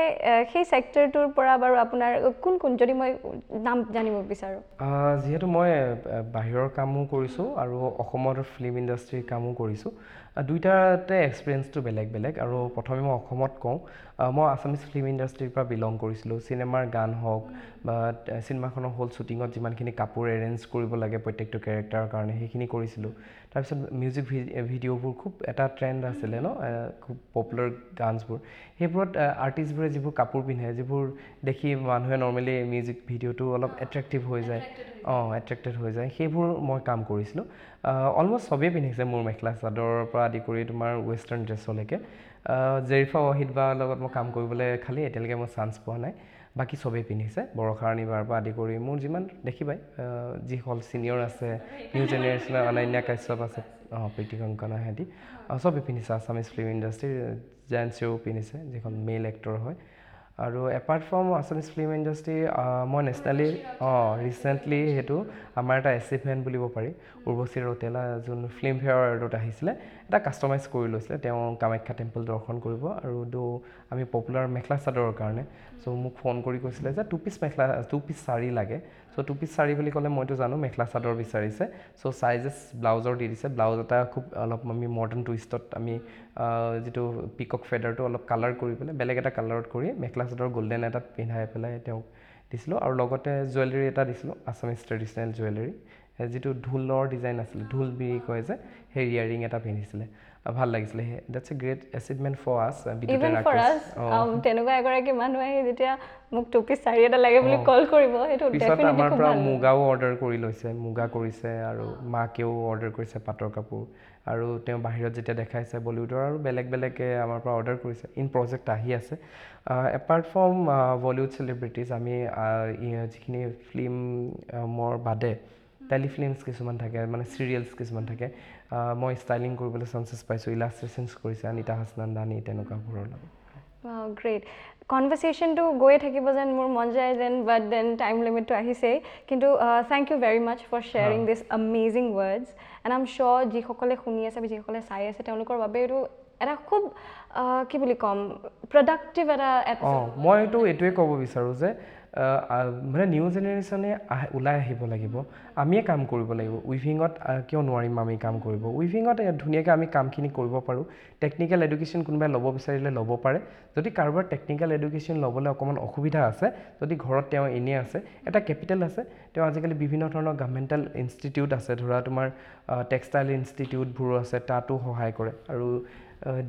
সেই ছেক্টৰটোৰ পৰা বাৰু আপোনাৰ কোন কোন, যদি মই নাম জানিব বিচাৰোঁ? যিহেতু মই বাহিৰৰ কামো কৰিছোঁ আৰু অসমৰ ফিল্ম ইণ্ডাষ্ট্ৰীৰ কামো কৰিছোঁ, দুইটাতে এক্সপিৰিয়েঞ্চটো বেলেগ বেলেগ। আৰু প্ৰথমে মই অসমত কওঁ, মই আছামিজ ফিল্ম ইণ্ডাষ্ট্ৰীৰ পৰা বিলং কৰিছিলোঁ। চিনেমাৰ গান হওক বা চিনেমাখনৰ হ'ল শ্বুটিঙত যিমানখিনি কাপোৰ এৰেঞ্জ কৰিব লাগে প্ৰত্যেকটো কেৰেক্টাৰৰ কাৰণে, সেইখিনি কৰিছিলোঁ। তাৰপিছত মিউজিক ভিডিঅ'বোৰ খুব এটা ট্ৰেণ্ড আছিলে ন, খুব পপুলাৰ গানছবোৰ, সেইবোৰত আৰ্টিষ্টবোৰে যিবোৰ কাপোৰ পিন্ধে, যিবোৰ দেখি মানুহে নৰ্মেলি মিউজিক ভিডিঅ'টো অলপ এট্ৰেক্টিভ হৈ যায়, এট্ৰেক্টেড হৈ যায়, সেইবোৰ মই কাম কৰিছিলোঁ। অলমষ্ট চবেই পিন্ধিছে মোৰ মেখেলা চাদৰৰ পৰা আদি কৰি তোমাৰ ৱেষ্টাৰ্ণ ড্ৰেছলৈকে। জেৰিফা ৱাহিদ বাৰ লগত মই কাম কৰিবলৈ খালি এতিয়ালৈকে মই চান্স পোৱা নাই, বাকী চবেই পিন্ধিছে। বৰষা ৰাণী বাৰ পৰা আদি কৰি মোৰ যিমান দেখিবাই, যিসকল ছিনিয়ৰ আছে, নিউ জেনেৰেশ্যনৰ অনন্যা কাশ্যপ আছে, প্ৰীতি কংকনা, সিহঁতি চবেই পিন্ধিছে। আছামিজ ফিল্ম ইণ্ডাষ্ট্ৰীৰ জেণ্টছেও পিন্ধিছে, যিখন মেল এক্টৰ হয়। আৰু apart from Assamese film industry, মই নেশ্যনেলি ৰিচেণ্টলি সেইটো আমাৰ এটা এচিভমেণ্ট বুলিব পাৰি, উৰ্বশী ৰৌতেলা যোন ফিল্মফেয়াৰ এৱাৰ্ডত আহিছিলে, এটা কাষ্টমাইজ কৰি লৈছিলে। তেওঁ কামাখ্যা টেম্পল দৰ্শন কৰিব আৰু আমি পপুলাৰ মেখেলা চাদৰৰ কাৰণে, চ' মোক ফোন কৰি কৈছিলে যে 2 পিচ মেখেলা, 2 পিচ শাৰী লাগে। চ' 2 পিচ শাৰী বুলি ক'লে মইতো জানো মেখেলা চাদৰ বিচাৰিছে। চ' চাইজেছ ব্লাউজৰ দি দিছে, ব্লাউজ এটা খুব অলপ আমি মডাৰ্ণ টুইষ্টত আমি যিটো পিকক ফেডাৰটো অলপ কালাৰ কৰি পেলাই বেলেগ এটা কালাৰত কৰি মেখেলা চাদৰ গল্ডেন এটাত পিন্ধাই পেলাই তেওঁক দিছিলোঁ। আৰু লগতে জুৱেলাৰী এটা দিছিলোঁ, আছামিজ ট্ৰেডিশ্যনেল জুৱেলাৰী, যিটো ঢোলৰ ডিজাইন আছিলে, ঢোল বিৰি কয় যে, সেই ইয়াৰিং এটা পিন্ধিছিলে, ভাল লাগিছিলে। That's a great achievement for us. Even for us, তেনেকুৱা এগৰাকী মানুহ আহি যেতিয়া মোক 2 পিচ শাৰী এটা লাগে বুলি কল কৰিব, সেইটো পিছত আমাৰ পৰা মুগাও অৰ্ডাৰ কৰি লৈছে, মুগা কৰিছে আৰু মাকেও অৰ্ডাৰ কৰিছে পাটৰ কাপোৰ। আৰু তেওঁ বাহিৰত যেতিয়া দেখাইছে বলিউডৰ আৰু বেলেগ বেলেগে আমাৰ পৰা অৰ্ডাৰ কৰিছে, ইন প্ৰজেক্ট আহি আছে। এপাৰ্ট ফ্ৰম বলিউড চেলিব্ৰিটিজ, আমি যিখিনি ফিল্মৰ বাদে টেলিফিল্মছ কিছুমান থাকে, মানে চিৰিয়েলছ কিছুমান থাকে, মই ষ্টাইলিং কৰিবলৈ চান্সেছ পাইছোঁ, ইলাষ্ট্ৰেশ্যনছ কৰিছে অনিতা হাছনান্দানী তেনেকুৱাবোৰৰ লগত। গ্ৰেট। কনভাৰ্চেশ্যনটো গৈয়ে থাকিব যেন মোৰ মন যায় যেন, বাট then time লিমিটটো আহিছেই। কিন্তু thank you very much for sharing this amazing words, and I am sure যিসকলে শুনি আছে বা যিসকলে চাই আছে তেওঁলোকৰ বাবে এইটো এটা খুব কি বুলি ক'ম, প্ৰডাক্টিভ এটা। মইতো এইটোৱে ক'ব বিচাৰোঁ যে মানে নিউ জেনেৰেশ্যনে ওলাই আহিব লাগিব, আমিয়ে কাম কৰিব লাগিব। উইভিঙত কিয় নোৱাৰিম আমি কাম কৰিব? উইভিঙত ধুনীয়াকৈ আমি কামখিনি কৰিব পাৰোঁ। টেকনিকেল এডুকেশ্যন কোনোবাই ল'ব বিচাৰিলে ল'ব পাৰে। যদি কাৰোবাৰ টেকনিকেল এডুকেশ্যন ল'বলৈ অকণমান অসুবিধা আছে, যদি ঘৰত তেওঁ এনেই আছে, এটা কেপিটেল আছে, তেওঁ আজিকালি বিভিন্ন ধৰণৰ গভৰ্ণমেণ্টেল ইনষ্টিটিউট আছে, ধৰা তোমাৰ টেক্সটাইল ইনষ্টিটিউটবোৰো আছে, তাতো সহায় কৰে। আৰু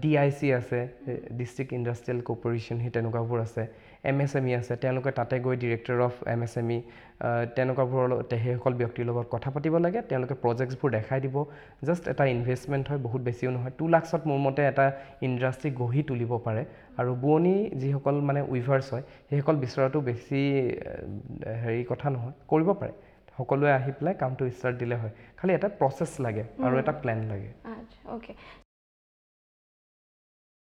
DIC আছে, ডিষ্ট্ৰিক্ট ইণ্ডাষ্ট্ৰিয়েল কৰ্পৰেশ্যন, সেই তেনেকুৱাবোৰ আছে। এমএছএমই আছে, তেওঁলোকে তাতে গৈ ডিৰেক্টৰ অফ এমএছএমই তেনেকুৱাবোৰৰ লগত, সেইসকল ব্যক্তিৰ লগত কথা পাতিব লাগে। তেওঁলোকে প্ৰজেক্টছবোৰ দেখাই দিব। জাষ্ট এটা ইনভেষ্টমেণ্ট হয়, বহুত বেছিও নহয়। 2 লাখছত মোৰ মতে এটা ইণ্ডাষ্ট্ৰি গঢ়ি তুলিব পাৰে। আৰু বোৱনী যিসকল মানে উইভাৰ্ছ হয়, সেইসকল বিচৰাটো বেছি হেৰি কথা নহয়, কৰিব পাৰে। সকলোৱে আহি পেলাই কামটো ষ্টাৰ্ট দিলে হয়, খালি এটা প্ৰচেছ লাগে আৰু এটা প্লেন লাগে। আচ্ছা, অ'কে।